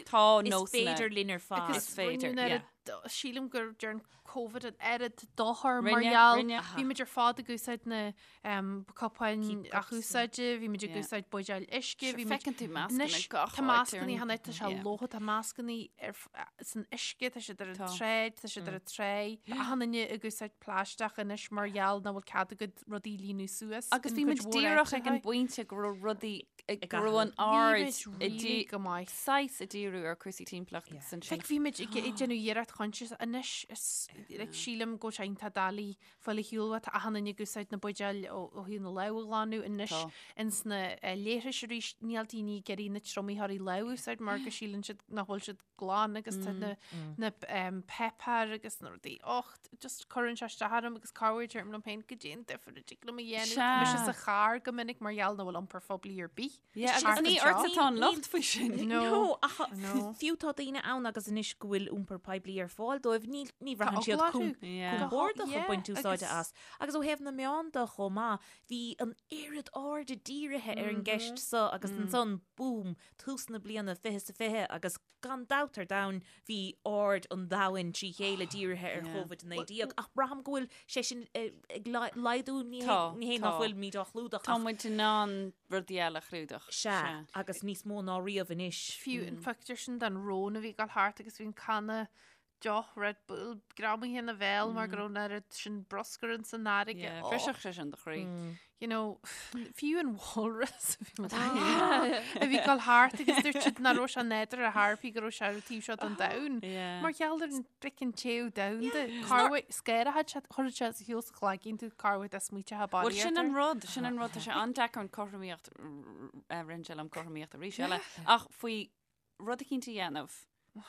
tá Is nósanna féidir linn ar fad. Agus Is féidir, rinneadh an yeah. oiread- sílim gur dearn Covid an oiread dochar mar Rinne, gheall. rinne. Bhí muid ar fad ag úsáid na um, cupáin Keep cups, athúsáide, bhí muid ag Yeah. úsáid buidéil uisce, Sure, bhí muid feiceann tú mascanna Anois, gach tá áit ar mascanna an- cheana, tá sé Yeah. lótha, tá mascanna ar f- san uisce, tá siad ar an Tá. tsráid, tá siad ar an tray. Tá achan duine ag úsáid plaisteach anois mar gheall nach bhfuil cead agat rudaí a líonadh suas. Agus in bhí cuid muid mhór díreach ag an áiteacha. bpointe go raibh rudaí Ag go raibh an Bhí aird muid i really dí- go maith. saghas ag díriú ar cúrsaí timpeallachta Yeah. agus ansin. Like, bhí muid ag ag déanamh iarracht conscious anois is like, sílim go bhfuil sé iontach doiligh fáil ar shiúl tá achan duine ag úsáid na buidéil ó ó thaobh na lámh a ghlanadh anois Tá. ins na eh, leithris arís níl daoine ag iarraidh na triomaítheoirí lámh a úsáid mar go síleann siad nach bhfuil siad glan agus tá na na um, peipear agus na rudaí och just cuireann sé isteach orm agus corruair deirim liom féin goidé an difear a dtig liom a dhéanamh. Tá mise Sea. sa charr go minic mar gheall nach bhfuil iompar phoiblí ar bith. Yeah, Thart agus ní anseo. ortsa atá an locht faoi sin. No. No, ach No. fiú tá daoine ann agus anois go bhfuil iompar poiblí ar fáil dóibh, ní ní Tá bhraitheann siad eagla orthu. Yeah. compordach Yeah, ag baint úsáide agus- as. Agus ó thaobh na meán de chomh maith, bhí an oiread airde dírithe ar an gceist seo agus ansan, boom, tús na bliana 2020 agus gan dabht ar domhan bhí aird an domhain trí chéile dírithe ar Yeah. Covid-19 ach braithim go bhfuil sé sin eh, ag laghdú ní hé Tá, ní hé nach tá. bhfuil muid á chlúdach Tá ach muid in ann rudaí eile a chlúdach. sea agus níos mó ná riamh anois. Fiú an pictiúr sin den rón a bhí ag dul thart agus bhí an canna. deoch Red Bull greamaithe ina bhéal mar go raibh an oiread sin bruscar in san fharraige. Yeah, bhrisfeadh sé sin do chroí. You know, fiú an walrus a bhí a bhí ag dul thart agus dúirt siad nach raibh sé nádúrtha ar chor ar bith go raibh sé ar an taobh seo den domhan. Yeah. Mar gheall ar an frickin téamh domhanda. Corruair scanraíonn sé, chuireann sé sa shiúl sa chlaigín tú corruair dá smaointeofá Bhuel sin an rud, sin an rud, tá sé an-deacair an cothromaíocht, rinne sé liom cothromaíocht arís eile, ach faoi rud eicínt a dhéanamh,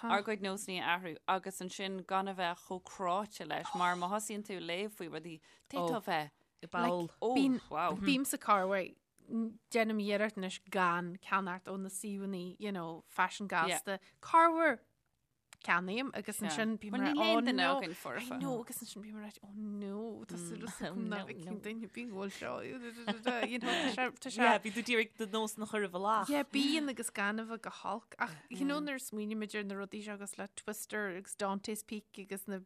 ár gcuid nósanna a athrú agus ansin gan a bheith chomh cráite leis mar má thosaíonn tú ag léamh faoi rudaí, d'fhéadfá a bheith I bpoll. Oh, Bím, wow. bímse corruair, déanaim iarracht anois gan ceannacht ó na suíomhanna, you know, faisean gasta. Corruair ceannaím agus ansin bím Bhuel, mar, níl oh aon duine no, againn foirfe. I know, agus ansin bím mar, oh no, tá súil agam no, nach bhfeicfidh no. duine ar bith go bhfuil seo, you know, tá sé, tá sé, Yeah, bhí tú d'iarraidh do nósanna a chur i bhfolach. Yeah, bíonn agus gan a bheith go holc. Ach you know nuair a smaoinímid ar na rudaí seo agus le Twister agus Dante's Peak agus na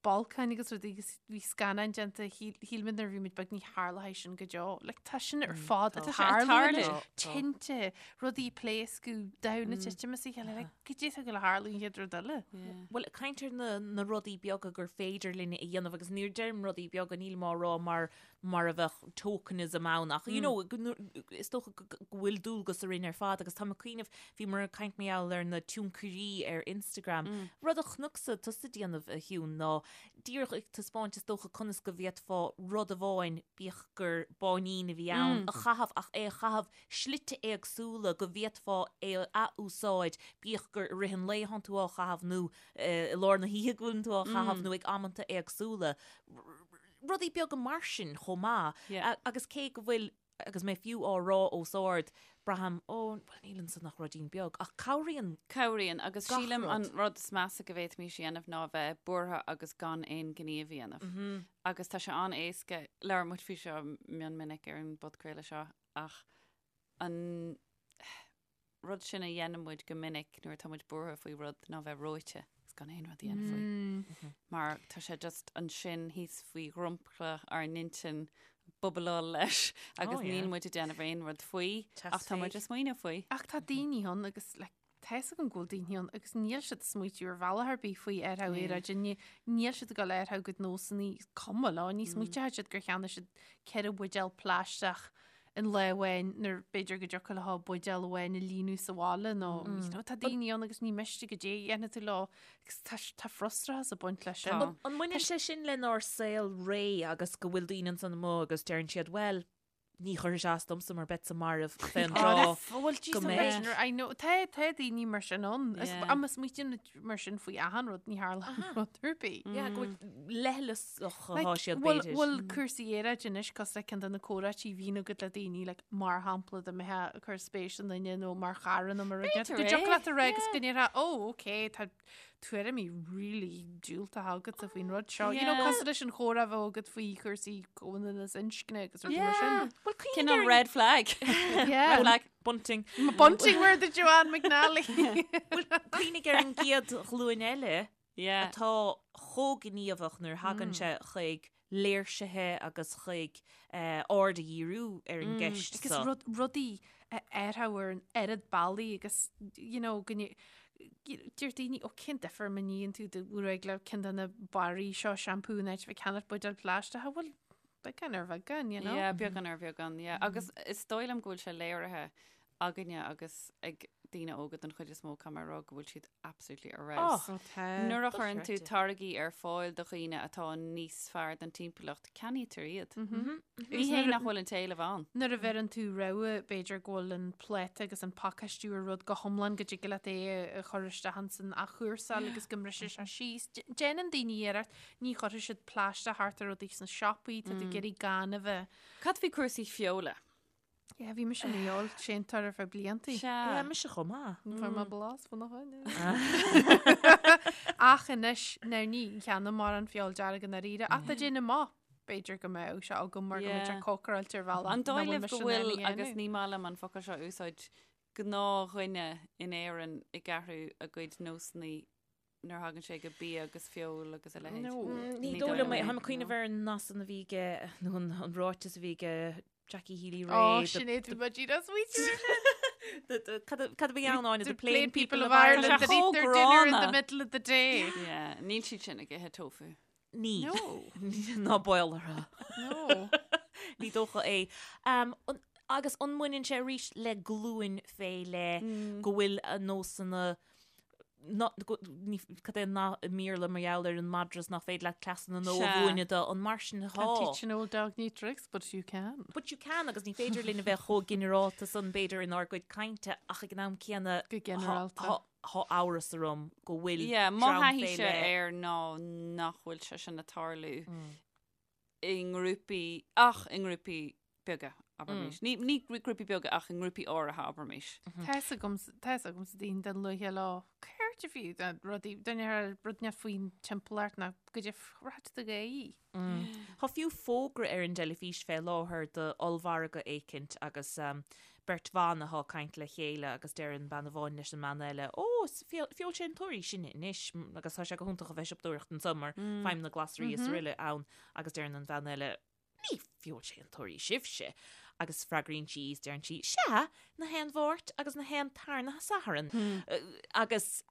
bolcáin agus rudaí agus bhí scannáin déanta shíl shíl muid nuair a bhí muid beag ní tharlóidh sin go deo. Like, tá sin ar fad ag Tá sé ag tarlú tarlú. anois. Tinte, rudaí ag pléascadh, domhan ag titim as a chéile. Like, goidé atá ag gabháil a tharlú an chéad rud eile. Bhuel, caint ar na, na rudaí beaga gur féidir linn a dhéanamh agus nuair a deirim rudaí beaga nílim á rá mar mar a bheadh tokenism ann ach you know, go nu- is dócha go go bhfuil dualgas orainn ar fad agus táim ag cuimhneamh, bhíomar ag caint mar gheall ar na tionchairí ar Instagram. Rud a chonacsa tusa ag déanamh a Shiún ná díreach ag taispeáint is dócha conas go bhféadfá rud amháin, bíodh gur báinín a bhí ann, a chaitheamh ach é a chaitheamh slite éagsúla go bhféadfá é a athúsáid, bíodh gur i rith an lae atánn tú á chaitheamh nó i lár na hoíche go bhfuileann tú á chaitheamh nó ag amanta éagsúla. Rudaí beaga mar sin chomh maith. Agus cé go bhfuil, agus mé fiú á rá os ard, braithim, ó, bhuel níl ansan ach ruidín beag, ach cabhraíonn. Cabhraíonn, agus Gach sílim rud. an rud is measa go bhféadfaimis a dhéanamh ná a bheith buartha agus gan aon ghníomh a dhéanamh. Agus tá sé an-éasca, labhair muid faoi seo mion minic ar an bpodchraoladh seo, ach an rud sin a dhéanann muid go minic nuair atá muid buartha faoi rud ná bheith reoite agus gan aon rud a dhéanamh faoi. Mar tá sé just ansin thíos faoi dhromchla ár n-intinn bubbleáil leis agus Oh, yeah. níl muid ag déanamh aon rud faoi ach tá muid ag smaoineamh faoi. Ach tá daoine ann agus like, tá fhios agam go bhfuil daoine ann agus níl siad ag smaoitiú ar bhealach ar bith faoi athrú aeráide, níl siad ag dul a athrú a gcuid nósanna, cuma leo, ní smaoiteoidh siad gur cheannaigh siad 4 bhuidéal plaisteach in lá amháin nuair b'fhéidir go dtiocfadh leo buidéal amháin a líonadh sa bhaile nó you know, tá daoine ann agus ní miste goidé a dhéanfaidh tú leo agus tá tá frustrachas ag baint leis sin. Tá. An mbaineann sé sin lenár saol réidh agus go bhfuil daoine ansan amuigh agus deireann siad, bhuel, ní chuirfidh sé as domsa mar beadsa marbh fén dtráth Bhuel, go mbeidh. I know, tá tá daoine mar sin ann. Is Yeah. Má smaoitíonn muid mar sin faoi achan rud ní tharlaíonn rud ar bith. Yeah, go bhfuil leithleasach atá siad Bhfuil b'fhéidir. bhfuil cúrsaí aeráide anois cosúil le ceann de na comhráití a bhíonn agat le daoine like, mar shampla dá mbeifeá ag cur spéis i nduine nó mar chara nó mar rud B'fhéidir go é, dtiocfadh leat a rá agus yeah. go ndéarfá oh ok tá tuairimí really diúltacha agatsa faoin rud seo. You know, Yeah. cosúil leis an chomhrá a bheadh agat faoi chúrsaí comhionannas inscne agus rudaí mar sin. Bhuel, cuimhnigh Cineál ar an- red flag. Yeah. Red flag. Bunting. Bunting where the Joanne McNally. Bhuel, cuimhnigh ar an gcéad ghlúin eile Yeah. atá chomh gníomhach nuair a thagann sé chuig léirsithe agus chuig aird a dhíriú ar an gceist Agus seo. rud, rudaí a athrú ar an oiread bealaí agus, you know, go nde- deir daoine, ó cén difear má níonn tú do ghruaig le ceann de na barraí seo seampú in áit a bheith ag ceannacht buidéal plaisteach, bhuel, beagán ar bheagán, you know? Yeah, beagán ar bheagán, yeah. Agus is dóigh liom go bhfuil sé léirithe againne agus ag daoine óga den chuid is mó, caithfidh mé a rá go bhfuil siad absolutely ar fheabhas. Oh, tá. Nuair a chuireann tú Dochreidte. táirgí ar fáil do dhaoine atá níos fearr don timpeallacht, ceannaítear iad. Agus Ní hé nuair a- nach bhfuil an t-éileamh ann. Nuair a bheireann tú rogha, b'fhéidir go bhfuil an pláta agus an pacáistiú ar rud go hiomlán go dtig leat é a chur isteach ins an athchúrsáil agus go mbrisfidh sé síos. Déanann daoine iarracht, ní chuirfidh siad plaisteach thart ar rudaí sna siopaí, tá tú ag iarraidh gan a bheith. Cad faoi cúrsaí feola? Yeah, bhí mise ina fheoilséantóir ar feadh bliantaí. Sea. Yeah, mise chomh maith. Fuair mé blas faoina choinne. Ach anois, now ní cheannaím mórán feoil dearg i ndáiríre, ach tá déanamh maith. B'fhéidir go mbeadh sé agam mar go mbeidh sé Yeah. cócaráilte ar bhealach An nach dóigh bhfuil libh mise go in ann a bhfuil, agus dhéanamh. ní maith liom an focal seo a úsáid, gnáthdhuine in Éirinn ag athrú a gcuid nósanna nuair a thagann sé go bia agus feoil agus a leithéid. No. Ní Ní dóigh dóigh liom é. liom é, Táim ag cuimhneamh no. ar an nath san a bhí aige, nó an ráiteas a bhí aige Jackie Healy Ó, Rae. Sinéad, bhí mé díreach ag smaoitiú air sin. Cad a bhí ann Áine? The plain people of Ireland that eat their dinner in the middle of the day. Yeah, níl siad sin ag ithe tofu. Níl. No. Ná baol orthu. No. Ní dócha é. Agus an mbaineann sé arís le glúin fé leith go bhfuil a nósanna cad é an nath i mBéarla mar gheall ar an madra is nach féidir leat cleasanna nua a mhúineadh dó, an mar sin atá? Can't teach an old dog new tricks, but you can. But you can agus ní féidir linn a bheith chomh ginearálta san b'fhéidir inár gcuid cainte ach ag an am céanna Go ginearálta. Tá amhras orm go bhfuil Yeah, mo dream fé thaithíse leith. air ná nach bhfuil sé sin ag tarlú i ngrúpaí, ach i ngrúpaí beaga, abraimis. Ní, ní grúpaí beaga ach i ngrúpaí áirithe, abraimis. Tá fhios agam, tá fhios agamsa daoine den luaithe lá céard a bhí de rudaí, duine ar rud neamh faoin timpeallacht ná go dtí rud de ghaoth. Tá fiú fógra ar an dteilifís fé láthair do ollmhargadh éicint agus beirt bhan athá ag caint le chéile agus deireann bean amháin leis an mbean eile, Ó, is feoilséantóirí sinne anois agus tá sé go hiontach a bheith siopadóireacht anso mar faighim na glasraí is araile ann agus deireann an bhean eile, Ní feoilséantóirí sibhse. Agus freagraíonn sí is deireann sí, Sea, na haon Mháirt agus na haon tarna Satharn. Agus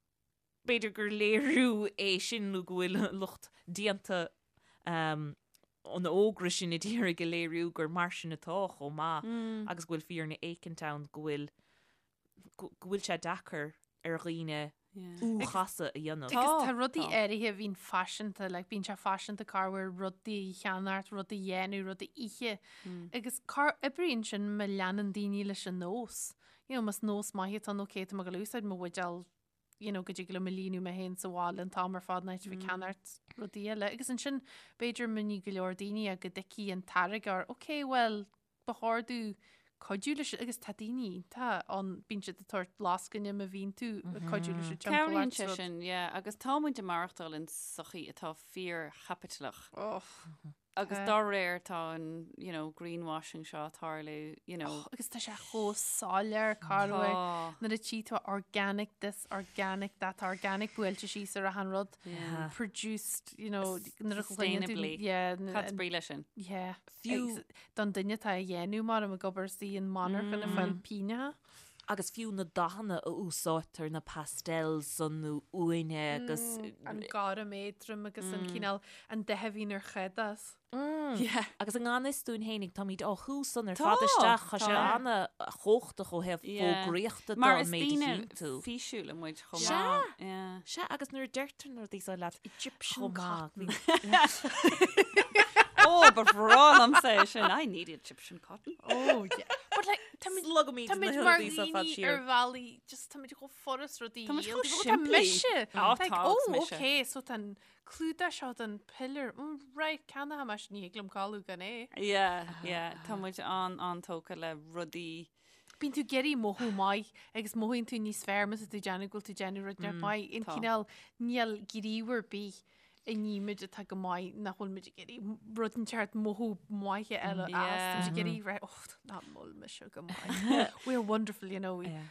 b'fhéidir gur léiriú é sin nó go bhfuil lucht déanta an fhógra sin ag iarraidh a léiriú gur mar sin atá chomh maith agus go bhfuil fírinne éicint ann go bhfuil go bhfuil sé deacair ar dhaoine U-chasadh a dhéanamh. Agus tá rudaí áirithe a bhíonn faiseanta, like bíonn sé faiseanta corruair rudaí a cheannacht, rudaí a dhéanamh, rudaí a ithe. Agus cá oibríonn sin má leanann daoine leis an nós. You know, más nós maith atá ann, okay, tá mé ag dul a úsáid mo bhuidéal you know, go dtig liom a líonadh mé féin sa bhaile an t-am ar fad in áit a bheith ag ceannacht rudaí eile. Agus ansin, b'fhéidir má ní go leor daoine go dtuigfidh an táirgeoir, ok, well, ba chóir domh cuidiú leis agus tá daoine iontach ann, bíonn siad ag tabhairt lascaine má bhíonn tú ag cuidiú leis an timpeallacht. Cabhraíonn sé sin, yeah, agus tá muid ag maireachtáil in sochaí atá fíorchaipitleach. Oh. Agus dá réir tá an, you know, greenwashing seo ag tarlú, you know. Oh, agus tá sé chomh soiléir corruair nuair a tchí tú organic this, organic that, tá organic buailte síos ar achan rud. Yeah. Produced, you know, nuair a chluineann tú. Sustainably. Yeah. Cad is brí leis sin? Yeah. Fiú- Agus Don duine atá á dhéanamh mar ag obair sa monarcha ag fáil pínneacha. Agus fiú na dathanna a úsáidtear, na pastels san nó uaine agus. An gorm éadrom agus an cineál, an dath a bhíonn ar chadás. Yeah. Agus i ngan fhios dúinn fhéinig, táimid á shú san ar fad isteach, tá sé ana-chumhachtach ó thaobh fógraíochta de Mar an is méid a daoine chíonn tú. físiúla muid chomh Sea! maith. Yeah. Sea, agus nuair a deirtear na rudaí seo leat Egyptian chomh maith, cotton. Ó, ba bhreá liomsa é sin. I need Egyptian cotton. Oh, yeah. But like, táimid Slogaimid na Táimid mar rudaí seo fad dhaoine siar. ar bhealaí, just táimid chomh furast rudaí Táimid a chomh dhíol. Tá simplí. mise. Á, Like, tá, oh, agus mise. okay, so tá an clúdach seo don pillar. Mm, right, ceannóidh mise, ní thig liom codladh gan é. Yeah, yeah. Tá muid an an-tógtha le rudaí. Bíonn tú ag iarraidh mothú maith agus mothaíonn tú níos fearr má tá tú ag déanamh go bhfuil tú ag déanamh rud mm, maith. An tá. cineál níl gníomh ar bith a nímid atá go maith nach bhfuil muid ag iarraidh rud inteacht mothú maith eile as. Tá muid ag iarraidh rá, oh, nach bhfuil mise go maith. We are wonderful, you know. We, Yeah.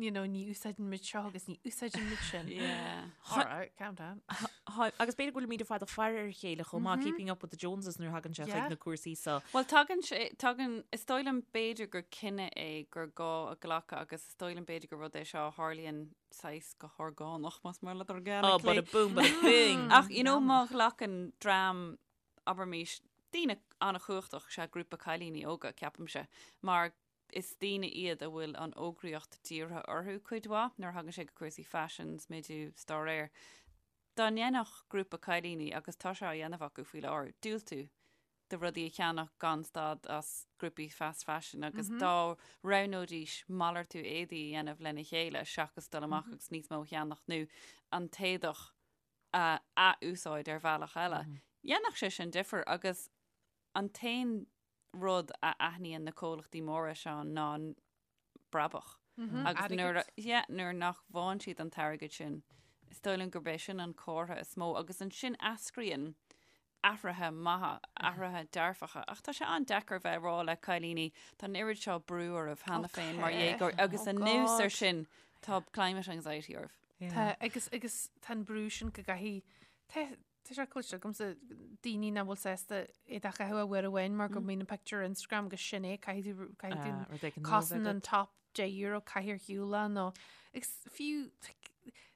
you know, ní úsáideann muid seo agus ní úsáideann muid sin. Yeah. All right, calm down. Tá, agus b'fhéidir go bhfuilimid ar fad ag faire ar a chéile chomh maith, keeping up with the Joneses nuair a thagann sé chuig Yeah. na cúrsaí seo. Bhuel, tagann sé, tagann, is dóigh liom b'fhéidir gur cinneadh é gur gá a ghlacadh agus is dóigh liom b'fhéidir gur rud é seo a tharlaíonn saghas go horgánach, más maith leat Oh, organically. bada boom, bada bing. Ach, you know, má ghlacann dream, abraimis, daoine an-chumhachtach, sea, grúpa cailíní óga, ceapaimse, mar is daoine iad a bhfuil an fhógraíocht dírithe orthu cuid mhaith nuair a thagann sé go cúrsaí faisin, smidiú, 's dá réir. Dá ndéanfadh grúpa cailíní, agus tá sé á dhéanamh acu faoi láthair, diúltú do rudaí a cheannach gan stad as grúpaí fast fashion agus dá roghnóidís malartú éadaí a dhéanamh lena chéile seachas dul amach agus níos mó a cheannach nó an t-éadach a ath-úsáid ar bhealach eile, dhéanfadh sé sin difear agus an t-aon rud a aithníonn na comhlachtaí móra seo ná brabach. Agus nuair, yeah, nuair nach bhfaigheann siad an t-airgead sin, is dóigh liom gurb é sin an comhartha is mó agus ansin eascraíonn athruithe maithe, athruithe dearfacha. Ach tá sé an-deacair bheith ag rá le cailíní, tá an oiread seo brú oraibh cheana féin mar dhéagóirí agus anuas ar sin tá climate anxiety oraibh. Tá, agus, agus tá an brú sin go gcaithfidh, tá, Tá sé cloiste agamsa daoine nach bhfuil sásta éadach a chaitheamh uair amháin mar go mbíonn an pictiúr ar Instagram agus sin é, caithfidh tú, caithfidh tú Ah, rud éigin nua a bheith cosann an agat. top €10 caith ar shiúl é nó agus fiú like,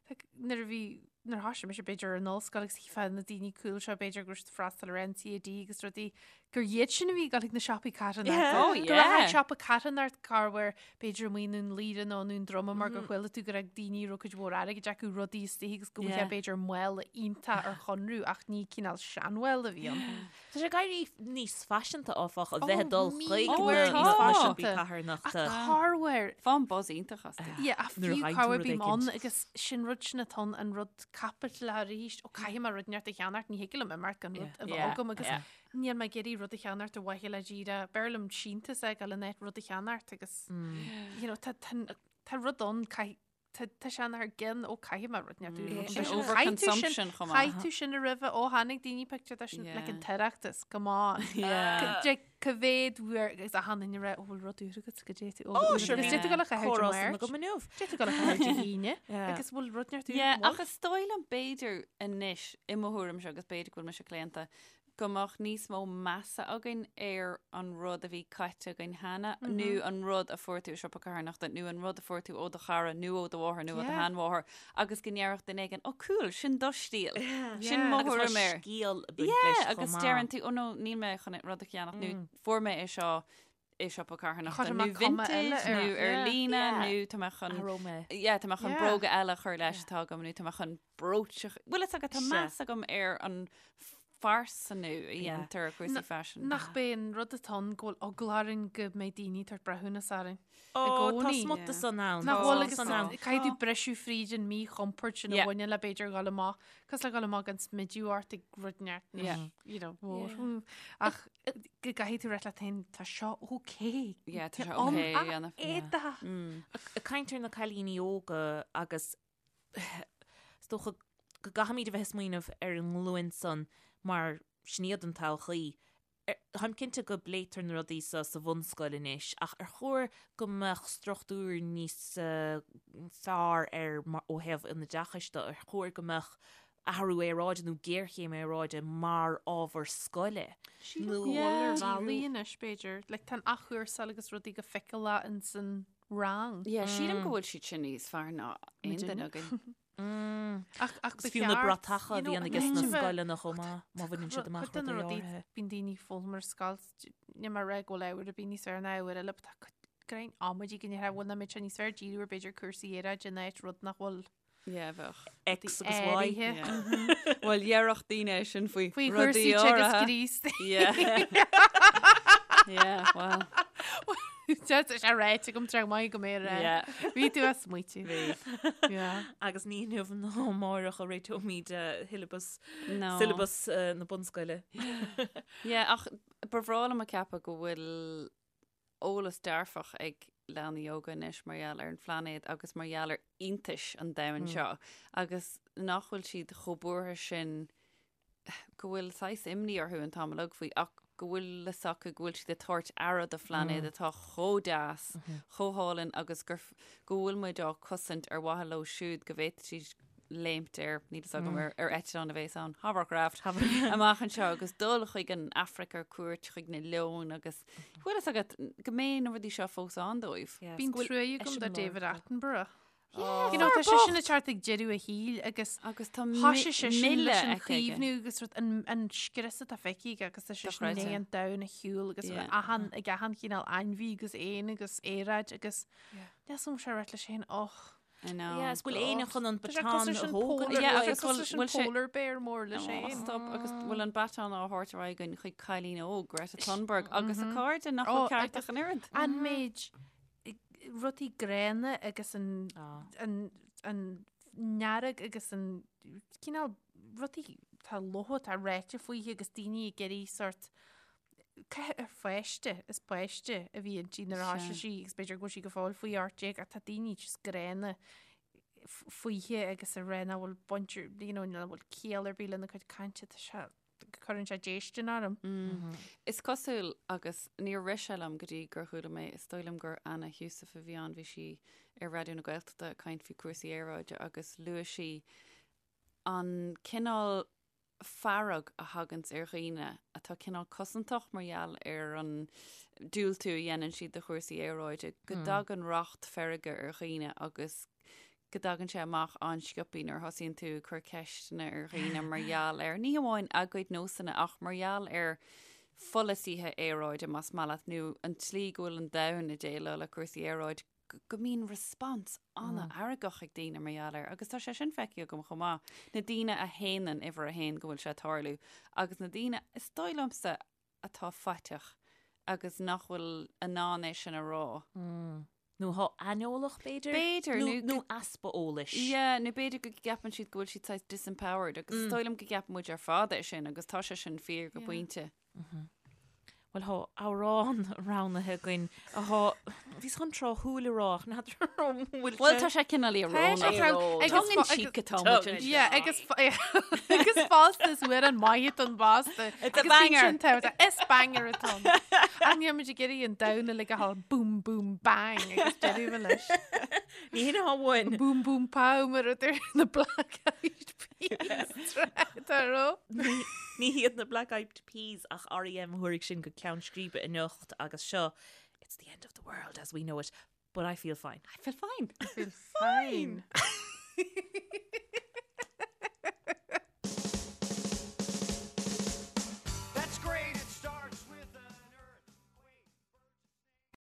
like, nuair a bhí nuair a thoisigh mise b'fhéidir ar an ollscoil agus chífeá na daoine cool seo b'fhéidir go raibh siad ag freastal ar NCAD agus rudaí gur iad sin a bhí ag dul chuig na siopaí carthanachta. Yeah. Oh, Go raibh yeah. siopa carthanachta corruair b'fhéidir amuigh i nDún Laoghaire nó i nDún Droma mar gur chuala tú go raibh daoine a raibh cuid mhór airgid acu rudaí istigh agus go bhfuil Yeah. b'fhéidir mála iontach ar chonradh ach ní cineál seanmhála a bhí ann. Tá sé ag éirí níos faiseanta áfach a bheith ag dul chuig uair na níos na faiseanta. siopaí carthanachta. Ach corruair Faighim buzz iontach astu. Yeah, ach Nuair a fiú fhaigheann tú corruair rud bím éicint. ann agus sin rud sin atá ann, an rud caipitleach arís, ó caithfidh mé rud inteacht a cheannacht, ní thig liom imeacht gan rud a bheith Yeah, agam agus yeah. níl mé ag iarraidh rud a cheannacht ar mhaithe le díreach, b'fhearr liom síntiús a fháil in áit rud a cheannacht agus you know, tá, tá, tá rud ann, caith, tá, tá sé thar gcionn, ó caithfidh mé rud inteacht Mm. mm. Sin overconsumption chomh maith. Chaith tú sin roimhe, ó tháinig daoine pictiúr de sin, like an Yeah. tOireachtas, come on. Yeah. Ca- Cá mhéad uair agus achan duine ag rá, ó bhfuil rud úr agat go dté tú, ó Ó, bhfuil sure, agus bhí dé tú go le caitheamh comhrá Dé san Máirt. agam inniu. Dé tú go le caitheamh Dé hAoine Yeah. agus bhfuil rud inteacht úr, Yeah, bhfuil? ach is dóigh liom b'fhéidir anois i mo thuairimse agus b'fhéidir go bhfuil mise claonta go mbeadh níos mó measa againn ar an rud a bhí caite againn cheana nó an rud a fuair tú i siopa carthanachta nó an rud a fuair tú ó do chara nó ó do mháthair nó ó do Yeah. sheanmháthair agus go ndéarfadh duine éigin, ó cool, sin do stíl. Sin Yeah. mo Agus tá thuairim air. scéal ag baint Yeah, leis chomh agus maith. deireann tú, ó no, níl mé chun rud a cheannach nó fuair mé é seo i siopa carthanachta Chuir nó mé cuma eile vintage air. nó ar Yeah. líne Yeah. nó tá mé chun Athróidh mé. Yeah, tá mé chun Yeah. bróga eile a chur leis atá agam nó tá mé chun brooch a Bhfuil fhios agat tá Sea. meas agam ar an phearsanú a dhéantar ar chúrsaí faisin. Nach b'é an rud atá ann go bhfuil eagla orainn go mbeidh daoine ag tabhairt breithiúnas orainn. Ó, tá gcónaí. smut san ann. Nach Tá bhfuil agus san ann. caithfidh tú briseadh fríd an míchompord sin a Yeah. bhaineann le b'fhéidir dhul amach, cosúil le dhul amach gan smideadh ort ag rud neart, Yeah. you know, mór. Ach go gcaithfidh tú rá leat féin, tá seo okay. Yeah, tá sé An okay a dhéanamh. éadach. Ag caint ar na cailíní óga agus is dócha go gcaithfimid a bheith ag smaoineamh ar an nglúin san mar sin iad an todhchaí. Táim cinnte go bpléitear na rudaí seo sa bhunscoil anois ach ar chóir go mbeadh struchtúr níos fearr ar ó thaobh an oideachais de, ar chóir go mbeadh athrú aeráide nó géarchéim aeráide mar ábhar scoile? Sílim go bhfuil ar bhealaí anois b'fhéidir. Like tá an athchúrsáil agus rudaí go feiceálach ins an rang. Yeah, sílim go bhfuil siad sin níos fearr ná aon duine againn. Ach ach Agus fiú na bratacha a bhíonn aige sna scoileanna chomh maith, má bhaineann siad amach rudaí rudaí áirithe. Bíonn daoine ag foghlaim ar scoil, níl mé ag rá go bhfuil ábhar ar bith níos fearr ná ábhar eile, but tá cuid greim amaidí go ndéarfá, bhfuil nach mbeadh sé níos fearr díriú ar b'fhéidir cúrsaí aeráide in áit rud nach bhfuil Yeah, bheadh. X agus Y. áirithe. Yeah. Bhuel, dhéarfadh daoine é sin faoi Faoi rudaí chúrsaí teagasc áirithe. Críost. Yeah. Yeah, well. Tá sé ráite agam tráth maith go mbeidh rá. Yeah. Bhí tú ag smaoitiú. Bhí. Yeah. Agus ní inniu ná amárach a réiteoimid syllabus, No. syllabus na bunscoile. Yeah, ach ba bhreá liom a ceapadh go bhfuil eolas dearfach ag leanaí óga anois mar gheall ar an phláinéad agus mar gheall ar iontais an domhain seo agus nach bhfuil siad chomh buartha sin go bhfuil saghas imní orthu an t-am uilig faoi ach go bhfuil fhios acu go bhfuil siad ag tabhairt aire do phláinéad atá chomh deas, chomh hálainn agus gur go bhfuil muid á cosaint ar mhaithe leo siúd go bhféadfaidh siad léimt ar, níl fhios agam, ar ar eitleán a bhéas ann, hovercraft, amach anseo agus dul chuig an Afraic ar cuairt chuig na leoin agus bhfuil fhios agat go mbeidh na rudaí seo fós ann dóibh. Bíonn trua agam do David Attenborough. Yeah, You know, tá fear sé sin bocht. ag teacht ag deireadh a shaoil agus Agus tá thoisigh sé sin leis an milleadh aici aige. chaomhnú agus rud an, an scrios atá feicthe aige agus tá sé sin Dochreidte. i ndiaidh an domhan a shiúl agus Yeah. achan, ag achan chineál ainmhí agus éan agus aeráid agus níl 's agam sé rá leis féin, och. I know. Yeah, is bhfuil éinne chun an Tá sé baton cosúil a leis an thógáil polar, Yeah, tá sé agus cosúil leis an bhfuil sé- polar bear mór leis Oh, féin. stop agus bhfuil an baton á thabhairt ar aghaidh againn chuig cailín óg Greta Thunberg agus a cairde nach Oh, bhfuil ceart agus- ach an oiread. An méid rudaí gránna agus an an an fhearg agus an cineál rudaí tá lofa tá ráite fúithi agus daoine ag iarraidh sort ar pháiste is páiste a bhí inti nuair a thoisigh sí agus b'fhéidir go bhfuil sí go fóill faoi 18 ach tá daoine just gránna fúithi agus ag rá nach bhfuil baint you know nach bhfuil ciall ar bith lena cuid cainte tá sé cuireann sé déistin orm. Is cosúil, agus níor rith sé liom go dtí gur chuala mé, is dóigh liom gur Anna Heussaff a bhí ann, bhí sí ar Raidió na Gaeltachta ag caint faoi chúrsaí aeráide agus luaigh sí an cineál. fearg a thaganns ar dhaoine atá cineál cosantach mar gheall ar an diúltú a dhéanann siad do chúrsaí aeráide, go dtagann racht feirge ar dhaoine agus go dtagann sé amach an-sciobthaí nuair a thosaíonn tú ag cur ceisteanna ar dhaoine mar gheall ar, ní hamháin a gcuid nósanna ach mar gheall ar pholasaithe aeráide, más maith leat, nó an tslí go bhfuil an domhan ag déileáil le cúrsaí aeráide. go mbíonn response an-fheargach ag daoine mar gheall air agus tá sé sin feicthe agam chomh maith, na daoine a shéanann uimhir a haon go bhfuil sé ag tarlú agus na daoine, is dóigh liomsa, atá faiteach agus nach bhfuil in ann é sin a rá. Nó atá aineolach, b'fhéidir? B'fhéidir, nó nó easpa eolais. Yeah, nó b'fhéidir go gceapann siad go bhfuil siad saghas disempowered agus is dóigh liom go gceapann muid ar fad é sin agus tá sé sin fíor go pointe. Bhuel, thá amhrán roghnaithe againn athá, bhíos chun tráthúil a rá ach n'fheadar an bhfuil sé. Bhuel, tá sé cineál íorónach. Tongue in cheek atá muid anseo. Yeah, agus agus fosta is uair an maith don bhfásta. It's a banger. Is banger atá ann. Ach níl muid ag iarraidh an domhan uilig a ghabháil boom boom bang agus deireadh leis. Ní hin atá uainn. Boom boom pow mar a deir na Black Eyed Peas tá ró. Ní hiad na Black Eyed Peas ach R.E.M. a thabharfaidh sinn go ceann scríbe anocht agus seo It's the end of the world as we know it, but I feel fine. I feel fine. I feel fine.